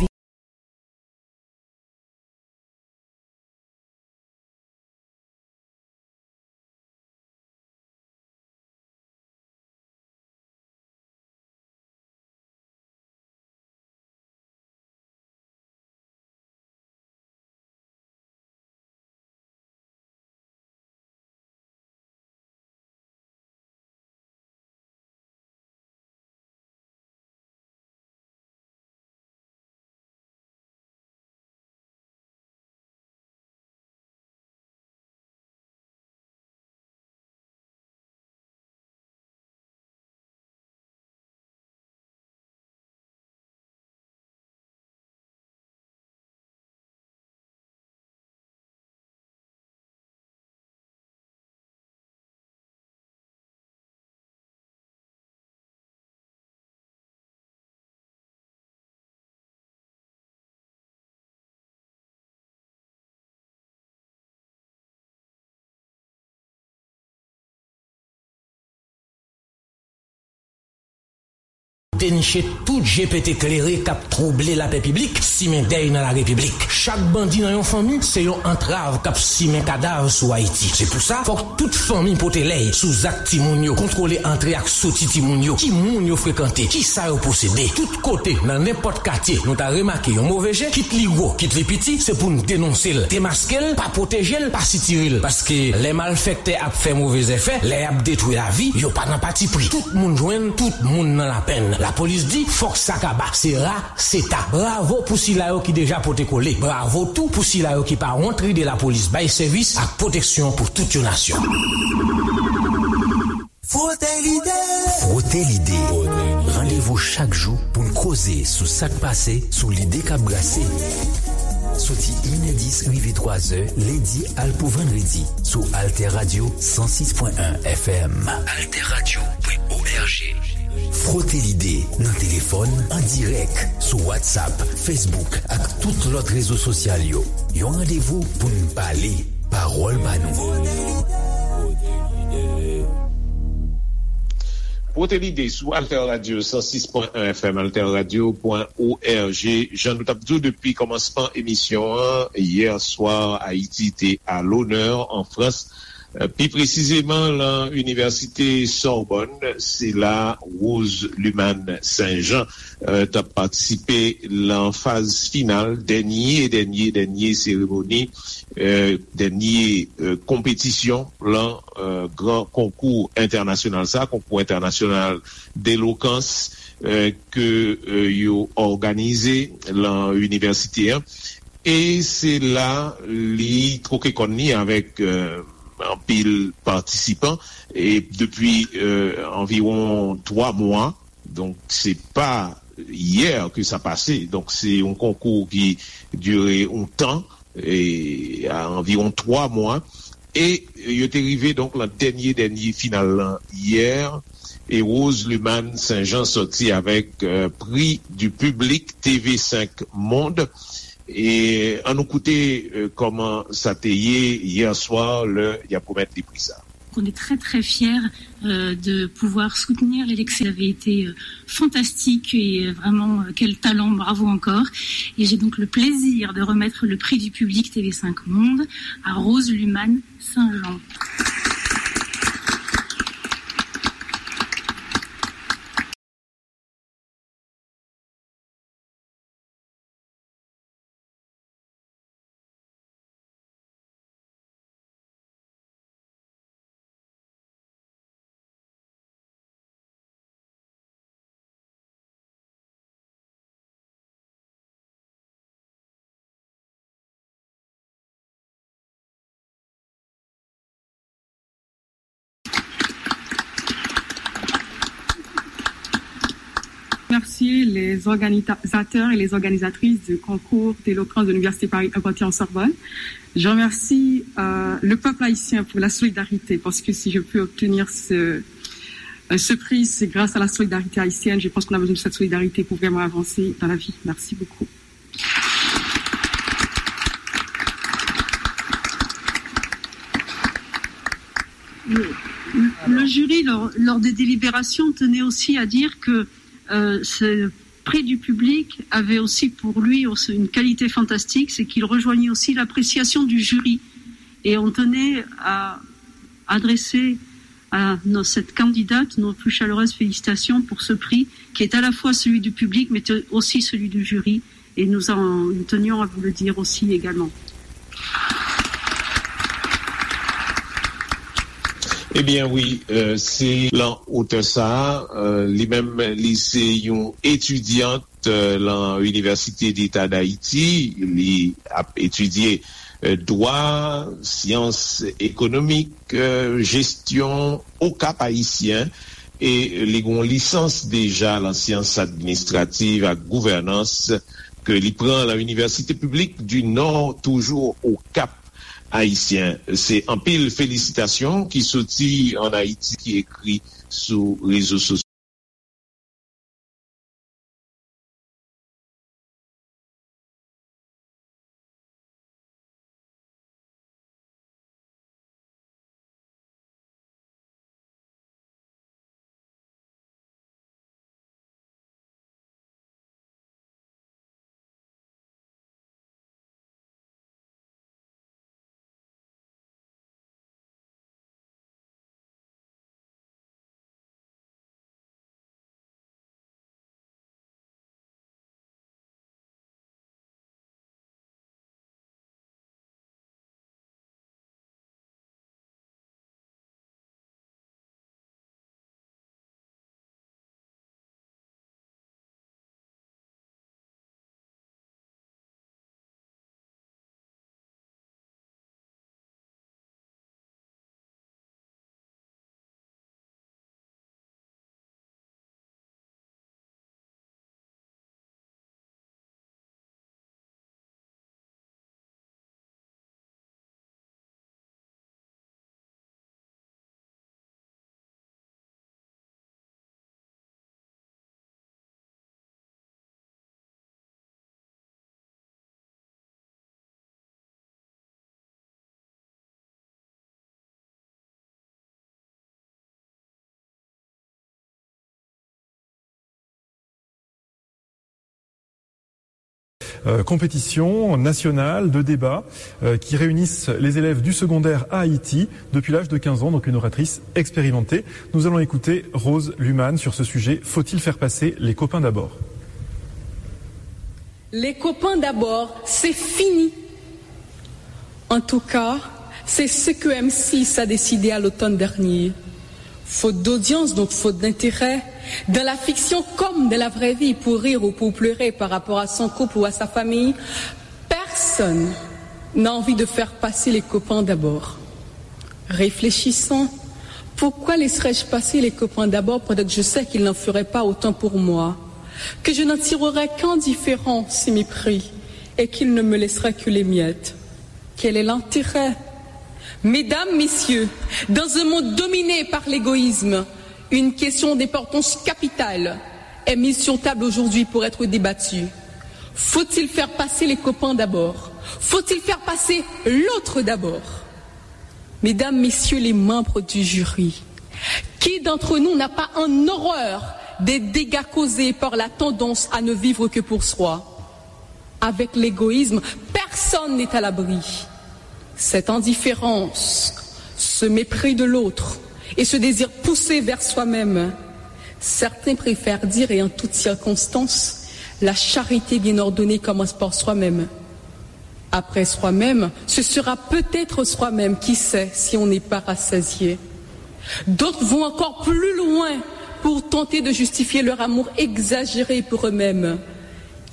Deniche tout je pete klere k ap twouble lapè piblik, simen dèy nan larepiblik. Chak bandi nan yon fanmi se yon antrav k ap simen kadav sou Ayiti. Se pou sa, fòk tout fanmi pote lèy sou zak timoun yo, kontwole antre ak soti timoun yo, ki moun yo frekante, ki sa yo posede. Tout kote, nan nenpòt katye, nou ta remake yon move je, kit li gwo, kit li piti, se pou n denonse l, demaske l, pa pwoteje l, pa sitire l. Paske lè malfèktè ap fè move zèfè, lè y ap detwi lavi, yo pa nan patipri. Tout moun jwenn, tout moun nan lapenn. Lapolis di, fòk sa kaba. Se ra, se ta. Bravo pou sila yo ki deja pote kole. Bravo tou pou sila yo ki pa wont ride lapolis bay sèvis ak pwoteksyon pou tout yon nasyon. Frote Lide. Frote Lide. Randevou chak jou pou n koze sou sa k pase, sou lide k ap brase. Soti inè dis rive twazè, lendi al pou vandredi, sou Alter Radio san sis pwen en F M. Alter Radio pwen O R G. Frote Lide nan telefòn, an dirèk, sou WhatsApp, Facebook ak tout lòt rezo sosyal yo. Yon randevou pou n pale, pawòl pa nou. Frote Lide sou Alter Radio san sis pwen en F M, alter radio pwen O R G. Jan nou t ap di w depi kòmansman emisyon an, yè swa, Ayiti te a lonè an Frans. Pi presizeman, lan Inivèsite Sorbonne, se la Rose Luman Saint Jean, eh, t ap patisipe lan faz final, dènye, dènye, dènye seremoni, eh, dènye, eh, konpetisyon, lan, eh, gran konkou entènasyonal sa, konkou entènasyonal delokans, eh, ke, eh, yo òganize lan inivèsite an. E se la li twoke kòn li avèk, eh, anpil patisipan. E depi, eh, anviwon twa mwa, donk se pa yè ke sa pase. Donk se yon konkou ki dire yon tan, e a anviwon twa mwa. E yo te rive donk lan dènye, dènye final lan yè. E Rose Luman Saint Jean sòti avèk, eh, Prix du Public T V cinq Monde. E ann nou koute, eh, kòman sa te ye yè swa lè y ap remèt li pri sa. On est très très fiers euh, de pouvoir soutenir les Lexi. Vous avez été euh, fantastique et euh, vraiment euh, quel talent, bravo encore. Et j'ai donc le plaisir de remettre le prix du public T V cinq Monde à Rose Luman Saint-Jean. Remercier les organisateurs et les organisatrices du concours d'éloquence de l'Université Paris Panthéon-Sorbonne. Je remercie euh, le peuple haïtien pour la solidarité, parce que si je peux obtenir ce, euh, ce prix, c'est grâce à la solidarité haïtienne. Je pense qu'on a besoin de cette solidarité pour vraiment avancer dans la vie. Merci beaucoup. Le, le jury, lors, lors des délibérations, tenait aussi à dire que euh, ce prix du public avait aussi pour lui aussi une qualité fantastique, c'est qu'il rejoignait aussi l'appréciation du jury. Et on tenait à adresser à nos- cette candidate nos plus chaleureuses félicitations pour ce prix qui est à la fois celui du public mais aussi celui du jury. Et nous, en, nous tenions à vous le dire aussi également. Ebyen wi, se lan otè sa a, li menm li se yon etidyant lan Inivèsite Deta Dayiti, li ap etidye dwa, syans ekonomik, jesyon o Kap Ayisyen, e li gen yon lisans deja lan syans administrativ ak gouvènans ke li pran lan Inivèsite Piblik di Nò, toujou o Kap Ayisyen. Se anpil felisitasyon ki soti ann Ayiti ki ekri sou rezo sosyo. Euh, compétitions nationales de débat euh, qui réunissent les élèves du secondaire à Haïti depuis l'âge de quinze ans, donc une oratrice expérimentée. Nous allons écouter Rose Luman sur ce sujet. Faut-il faire passer les copains d'abord ? Les copains d'abord, c'est fini. En tout cas, c'est ce que M six a décidé à l'automne dernier. Faute d'audience, donc faute d'intérêt, dans la fiction comme dans la vraie vie, pour rire ou pour pleurer par rapport à son couple ou à sa famille, personne n'a envie de faire passer les copains d'abord. Réfléchissons, pourquoi laisserais-je passer les copains d'abord pendant que je sais qu'ils n'en feraient pas autant pour moi, que je n'en tirerais qu'un différent si mépris et qu'ils ne me laisseraient que les miettes ? Quel est l'intérêt ? Mesdames, Messieurs, dans un monde dominé par l'égoïsme, une question d'importance capitale est mise sur table aujourd'hui pour être débattue. Faut-il faire passer les copains d'abord ? Faut-il faire passer l'autre d'abord ? Mesdames, Messieurs les membres du jury, qui d'entre nous n'a pas en horreur des dégâts causés par la tendance à ne vivre que pour soi ? Avec l'égoïsme, personne n'est à l'abri. Cette indifférence, ce mépris de l'autre et ce désir poussé vers soi-même, certains préfèrent dire, et en toutes circonstances, la charité bien ordonnée commence par soi-même. Après soi-même, ce sera peut-être soi-même, qui sait si on n'est pas rassasié. D'autres vont encore plus loin pour tenter de justifier leur amour exagéré pour eux-mêmes.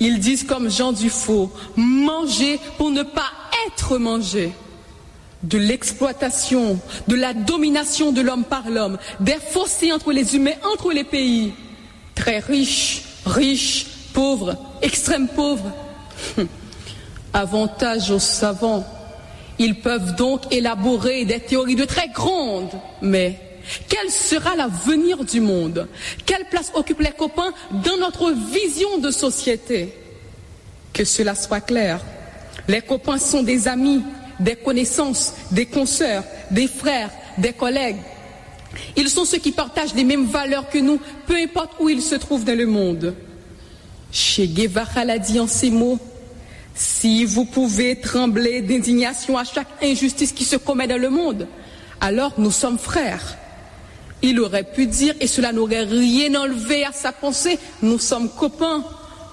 Ils disent comme Jean Dufault, manger pour ne pas être mangé. De l'exploitation, de la domination de l'homme par l'homme, des fossés entre les humains, entre les pays. Très riches, riches, pauvres, extrême pauvres. Avantage aux savants. Ils peuvent donc élaborer des théories de très grande, mais quel sera l'avenir du monde ? Quelle place occupent les copains dans notre vision de société ? Que cela soit clair, les copains sont des amis, des connaissances, des consoeurs, des frères, des collègues. Ils sont ceux qui partagent les mêmes valeurs que nous, peu importe où ils se trouvent dans le monde. Che Guevara l'a dit en ces mots, si vous pouvez trembler d'indignation à chaque injustice qui se commet dans le monde, alors nous sommes frères. Il aurait pu dire, et cela n'aurait rien enlevé à sa pensée, nous sommes copains.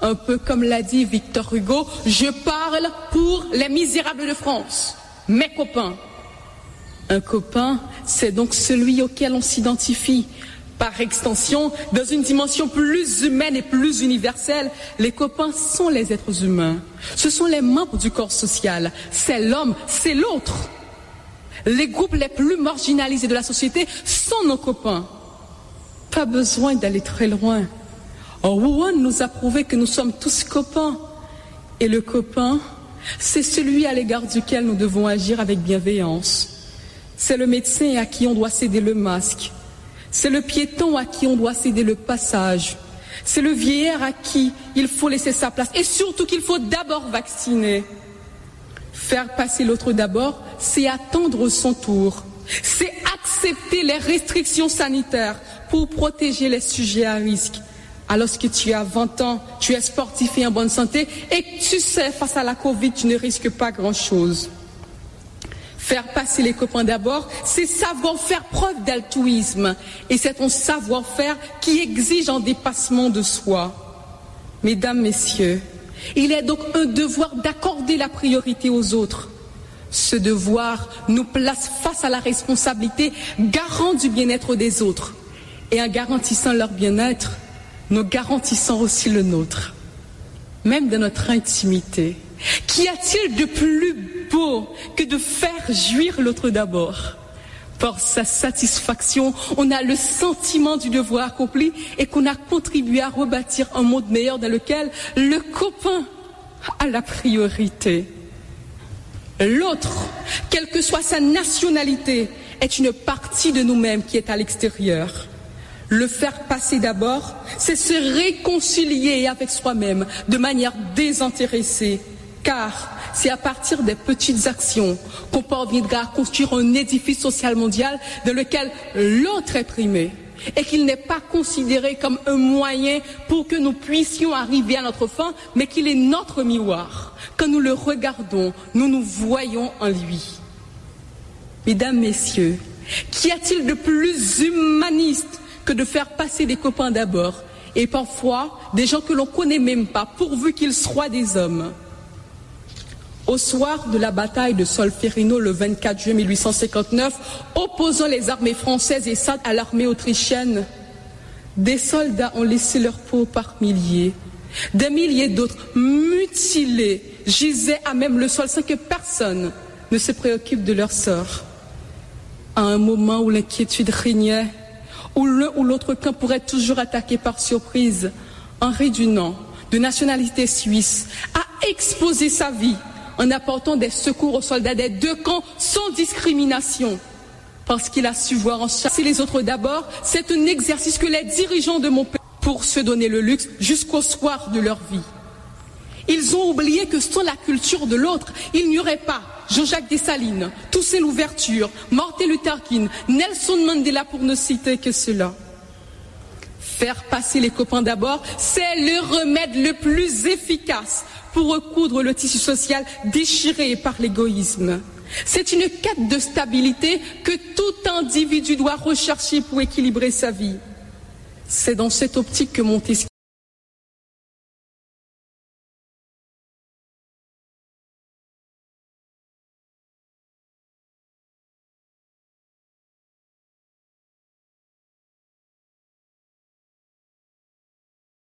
Un peu comme l'a dit Victor Hugo, je parle pour les misérables de France, mes copains. Un copain, c'est donc celui auquel on s'identifie. Par extension, dans une dimension plus humaine et plus universelle, les copains sont les êtres humains. Ce sont les membres du corps social. C'est l'homme, c'est l'autre. Les groupes les plus marginalisés de la société sont nos copains. Pas besoin d'aller très loin. Wuhan nous a prouvé que nous sommes tous copains. Et le copain, c'est celui à l'égard duquel nous devons agir avec bienveillance. C'est le médecin à qui on doit céder le masque. C'est le piéton à qui on doit céder le passage. C'est le vieillard à qui il faut laisser sa place. Et surtout qu'il faut d'abord vacciner. Faire passer l'autre d'abord, c'est attendre son tour. C'est accepter les restrictions sanitaires pour protéger les sujets à risque. Alors que tu as vingt ans, tu es sportif et en bonne santé et que tu sais, face à la covid, tu ne risques pas grand-chose. Faire passer les copains d'abord, c'est savoir faire preuve d'altruisme. Et c'est un savoir-faire qui exige un dépassement de soi. Mesdames, Messieurs, il est donc un devoir d'accorder la priorité aux autres. Ce devoir nous place face à la responsabilité garant du bien-être des autres. Et en garantissant leur bien-être, nous garantissons aussi le nôtre. Même dans notre intimité, qu'y a-t-il de plus beau que de faire jouir l'autre d'abord ? Par sa satisfaction, on a le sentiment du devoir accompli et qu'on a contribué à rebâtir un monde meilleur dans lequel le copain a la priorité. L'autre, quelle que soit sa nationalité, est une partie de nous-mêmes qui est à l'extérieur. Le faire passer d'abord, c'est se réconcilier avec soi-même de manière désintéressée, car c'est à partir des petites actions qu'on parviendra à construire un édifice social mondial dans lequel l'autre est primé et qu'il n'est pas considéré comme un moyen pour que nous puissions arriver à notre fin, mais qu'il est notre miroir. Quand nous le regardons, nous nous voyons en lui. Mesdames, Messieurs, qu'y a-t-il de plus humaniste que de faire passer des copains d'abord, et parfois des gens que l'on connaît même pas, pourvu qu'ils soient des hommes ? Au soir de la bataille de Solferino le vingt-quatre juin mille huit cent cinquante-neuf, opposant les armées françaises et sardes à l'armée autrichienne, des soldats ont laissé leur peau par milliers. Des milliers d'autres, mutilés, gisaient à même le sol sans que personne ne se préoccupe de leur sort. À un moment où l'inquiétude régnait, où l'un ou l'autre camp pourrait toujours attaquer par surprise, Henri Dunant, de nationalité suisse, a exposé sa vie en apportant des secours aux soldats des deux camps sans discrimination. Parce qu'il a su voir en chasser les autres d'abord, c'est un exercice que les dirigeants de mon pays pour se donner le luxe jusqu'au soir de leur vie. Ils ont oublié que sans la culture de l'autre, il n'y aurait pas Jean-Jacques Dessalines, Toussaint Louverture, Martin Luther King, Nelson Mandela, pour ne citer que ceux-là. Faire passer les copains d'abord, c'est le remède le plus efficace pour recoudre le tissu social déchiré par l'égoïsme. C'est une quête de stabilité que tout individu doit rechercher pour équilibrer sa vie. C'est dans cette optique que Montesquieu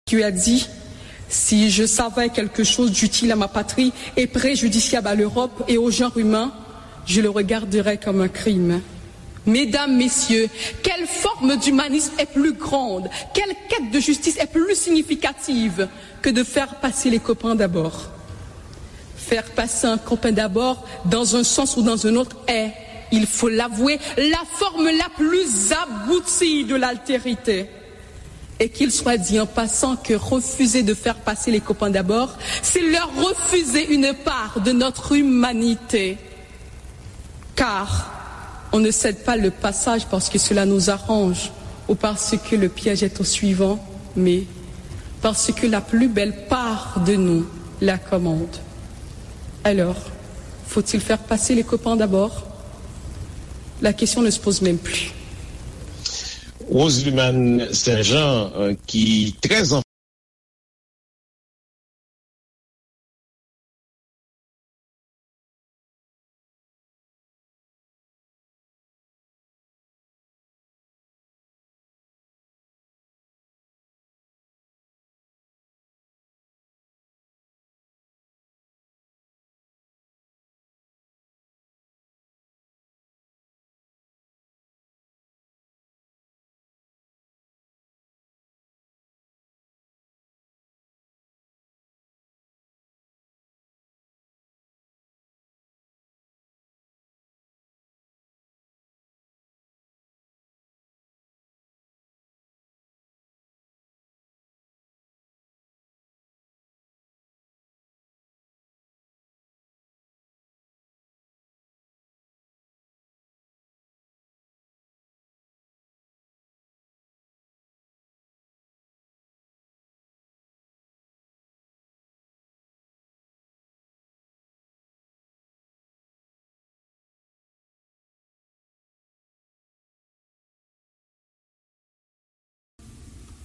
Montesquieu a dit, si je savais quelque chose d'utile à ma patrie et préjudiciable à l'Europe et au genre humain, je le regarderais comme un crime. Mesdames, Messieurs, quelle forme d'humanisme est plus grande, quelle quête de justice est plus significative que de faire passer les copains d'abord ? Faire passer un copain d'abord, dans un sens ou dans un autre, est, il faut l'avouer, la forme la plus aboutie de l'altérité. Et qu'il soit dit en passant que refuser de faire passer les copains d'abord, c'est leur refuser une part de notre humanité. Car on ne cède pas le passage parce que cela nous arrange ou parce que le piège est au suivant, mais parce que la plus belle part de nous la commande. Alors, faut-il faire passer les copains d'abord ? La question ne se pose même plus. Roseluman Saint-Jean, euh, qui très en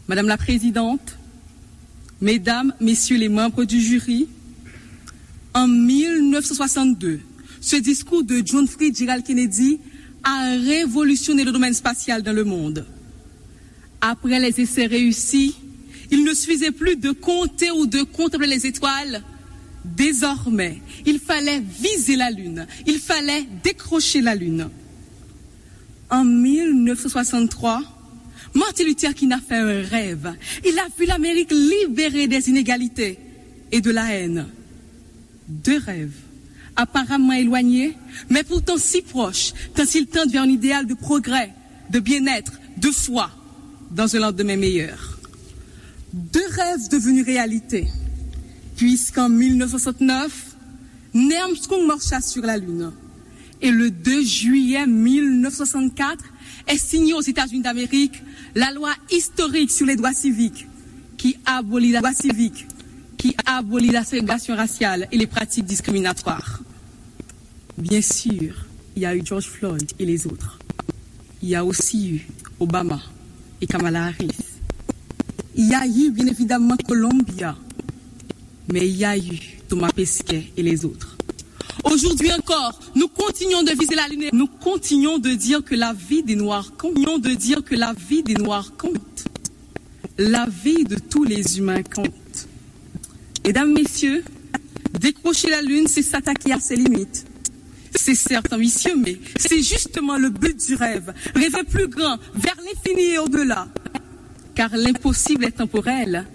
Madame la Présidente, Mesdames, Messieurs les membres du jury, en mille neuf cent soixante-deux, ce discours de John Fitzgerald Kennedy a révolutionné le domaine spatial dans le monde. Après les essais réussis, il ne suffisait plus de compter ou de contempler les étoiles. Désormais, il fallait viser la Lune, il fallait décrocher la Lune. En mille neuf cent soixante-trois, Martin Luther King a fait un rêve. Il a vu l'Amérique libérée des inégalités et de la haine. Deux rêves, apparemment éloignés, mais pourtant si proches, tant ils tendent vers un idéal de progrès, de bien-être, de foi, dans un lendemain meilleur. Deux rêves devenus réalité, puisqu'en mille neuf cent soixante-neuf, Neil Armstrong marcha sur la Lune. Et le deux juillet mille neuf cent soixante-quatre est signée aux États-Unis d'Amérique la loi historique sur les droits civiques qui abolit la, droits civiques qui abolit la ségrégation raciale et les pratiques discriminatoires. Bien sûr, il y a eu George Floyd et les autres. Il y a aussi eu Obama et Kamala Harris. Il y a eu, bien évidemment, Columbia. Mais il y a eu Thomas Pesquet et les autres. Aujourd'hui encore, nous continuons de viser la Lune et nous continuons de dire que la vie des Noirs compte, continuons de dire que la vie des Noirs compte. La vie de tous les humains compte. Mesdames, Messieurs, décrocher la Lune, c'est s'attaquer à ses limites. C'est certes ambitieux, mais c'est justement le but du rêve. Rêver plus grand, vers l'infini et au-delà. Car l'impossible est temporel,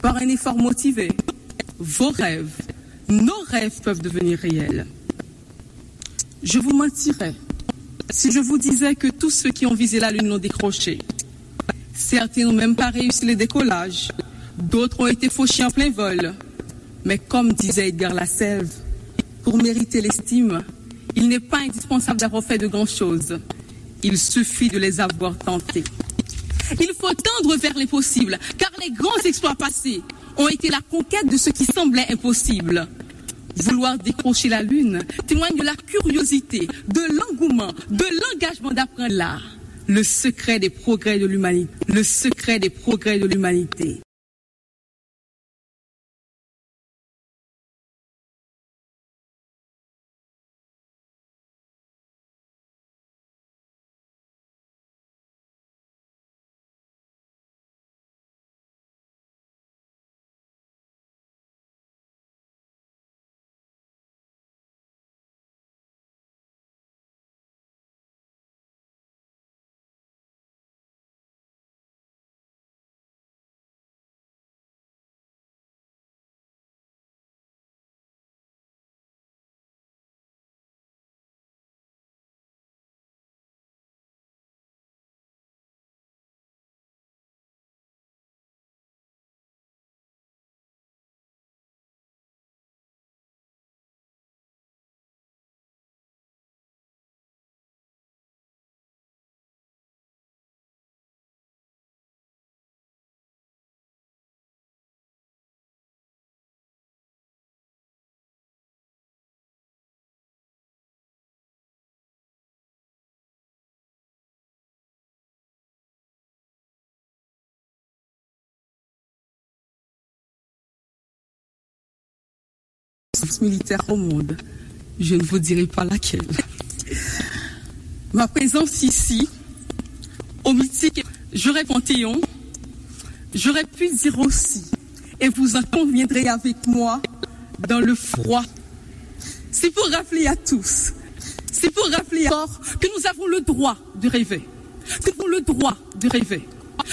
par un effort motivé. Vos rêves, nos rêves peuvent devenir réels. Je vous mentirais si je vous disais que tous ceux qui ont visé la Lune l'ont décroché. Certains n'ont même pas réussi le décollage. D'autres ont été fauchés en plein vol. Mais comme disait Edgar Lasselve, Pour mériter l'estime, il n'est pas indispensable d'avoir fait de grandes choses. Il suffit de les avoir tentées. Il faut tendre vers l'impossible, car les grands exploits passés ont été la conquête de ce qui semblait impossible. Vouloir décrocher la lune témoigne de la curiosité, de l'engouement, de l'engagement d'apprendre l'art. Le secret des progrès de l'humanité. Le secret des progrès de l'humanité. Militaire au monde. Je ne vous dirai pas laquelle. Ma présence ici, au mythique, j'aurais Panthéon, j'aurais pu dire aussi, et vous en conviendrez avec moi, dans le froid. C'est pour rappeler à tous, c'est pour rappeler encore que nous avons le droit de rêver, que nous avons le droit de rêver,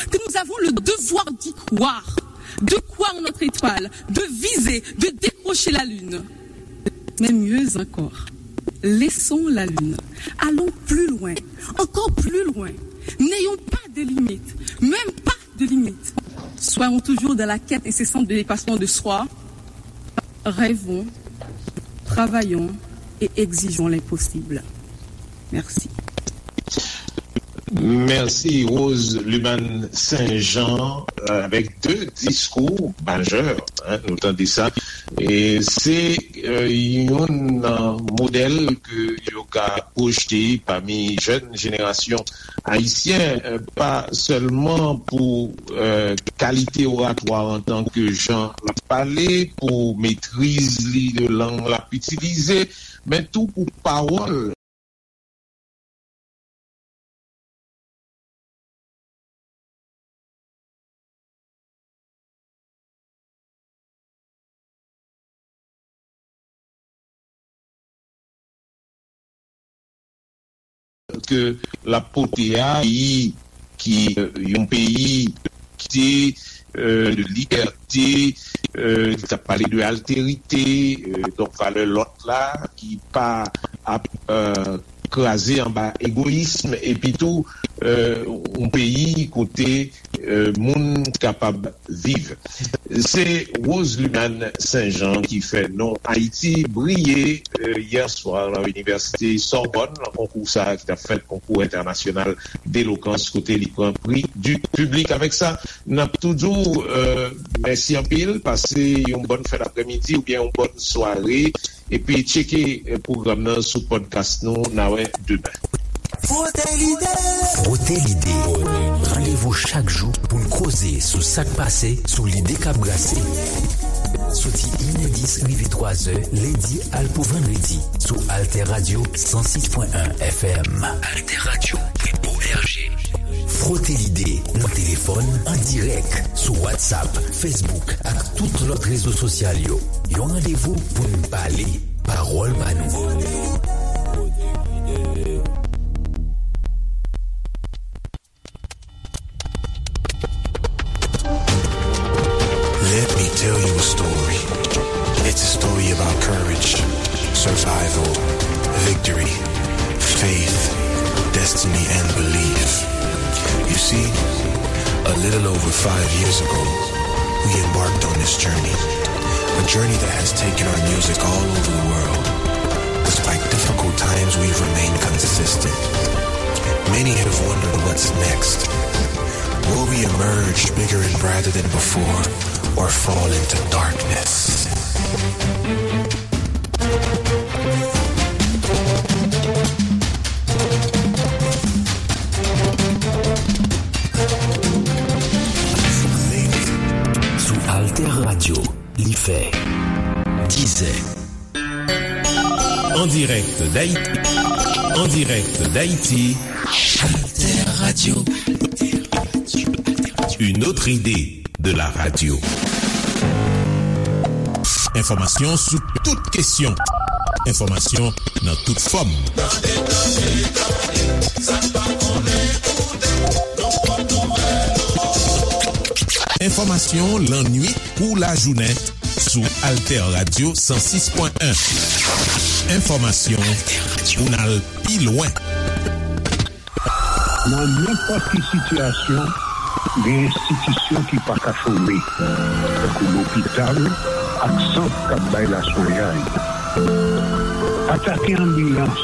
que nous avons le devoir d'y croire, de croire en notre étoile, de viser, de décrocher la lune. Mais mieux encore, laissons la lune. Allons plus loin, encore plus loin. N'ayons pas de limite, même pas de limite. Soyons toujours dans la quête incessante de dépassement de soi. Rêvons, travaillons et exigeons l'impossible. Merci. Mèsi, Rose Luman Saint-Jean, euh, avèk de diskou majè, hein, nou tande sa. E se, euh, yon, euh, modèl ke yo ka pwojte pami jèn jenerasyon ayisyen, euh, pa sèlman pou, euh, kalite oratwa an tan ke jan l ap pale, pou metriz li de lang l ap itilize, men tou pou pawòl ke l ap pote a, peyi ki, euh, yon peyi ki te, euh, de libète, euh, ki t ap pale de altérité, euh, donk valè lòt la, ki pa ap, euh, kraze anba egoyism, epi tou, euh, yon peyi kote, euh, moun kapab viv. Se Rose Luman Saint-Jean ki fè non Ayiti briye, euh, yè swa nan Inivèsite Sòbòn, nan konkou sa a ki t ap fèt, konkou entènasyonal delokans, kote li pran pri di piblik. Avèk sa, n ap tou di w, euh, mèsi anpil, pase yon bòn fen daprèmidi oubyen yon bòn sware. Epi tcheke, eh, pwogram nan sou podcast nou. N a wè demen. Frote lide. Frote lide. Randevou chak jou pou n koze sou sa k pase sou lide k ap brase. Soti inè dis rive twazè, lendi al pou vandredi, sou Alter Radio san sis pwen en F M. Alter Radio pwen O R G. Frote lide, nan telefòn, an dirèk, sou WhatsApp, Facebook ak tout lòt rezo sosyal yo. Yon randevou pou n pale, pawòl pa nou. Let me tell you a story. It's a story about courage, survival, victory, faith, destiny, and belief. You see, a little over five years ago, we embarked on this journey. A journey that has taken our music all over the world. Despite difficult times, we've remained consistent. Many have wondered what's next. Will we emerge bigger and brighter than before, or fall into darkness? Sou Alter Radio, li fè dizè. En direct d'Haïti. En direct d'Haïti. Alter Radio. Une autre idée de la radio. Enfòmasyon sou tout kesyon. Enfòmasyon nan tout fòm. Enfòmasyon lannwit kou lajounen sou Alter Radio san sis pwen en. Enfòmasyon pou n al pi lwen. Nan nenpòt ki sitiyasyon, gen enstitisyon ki pa ka chome, tankou lopital ak sant k ap bay laswenyay. Atake anbilans,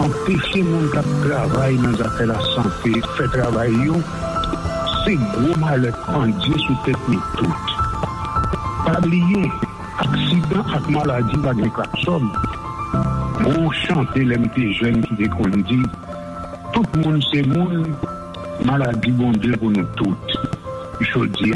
anpeche moun k ap travay nan zafè lasante fè travay yo, se gwo malè k pandye sou tèt nou tout. Pa bliye, aksidan ak maladi pa gen klaksòn. Gon chante lè m te jèn ki te konn di, tout moun se moun, maladi Bondye pou nou tout. Jodi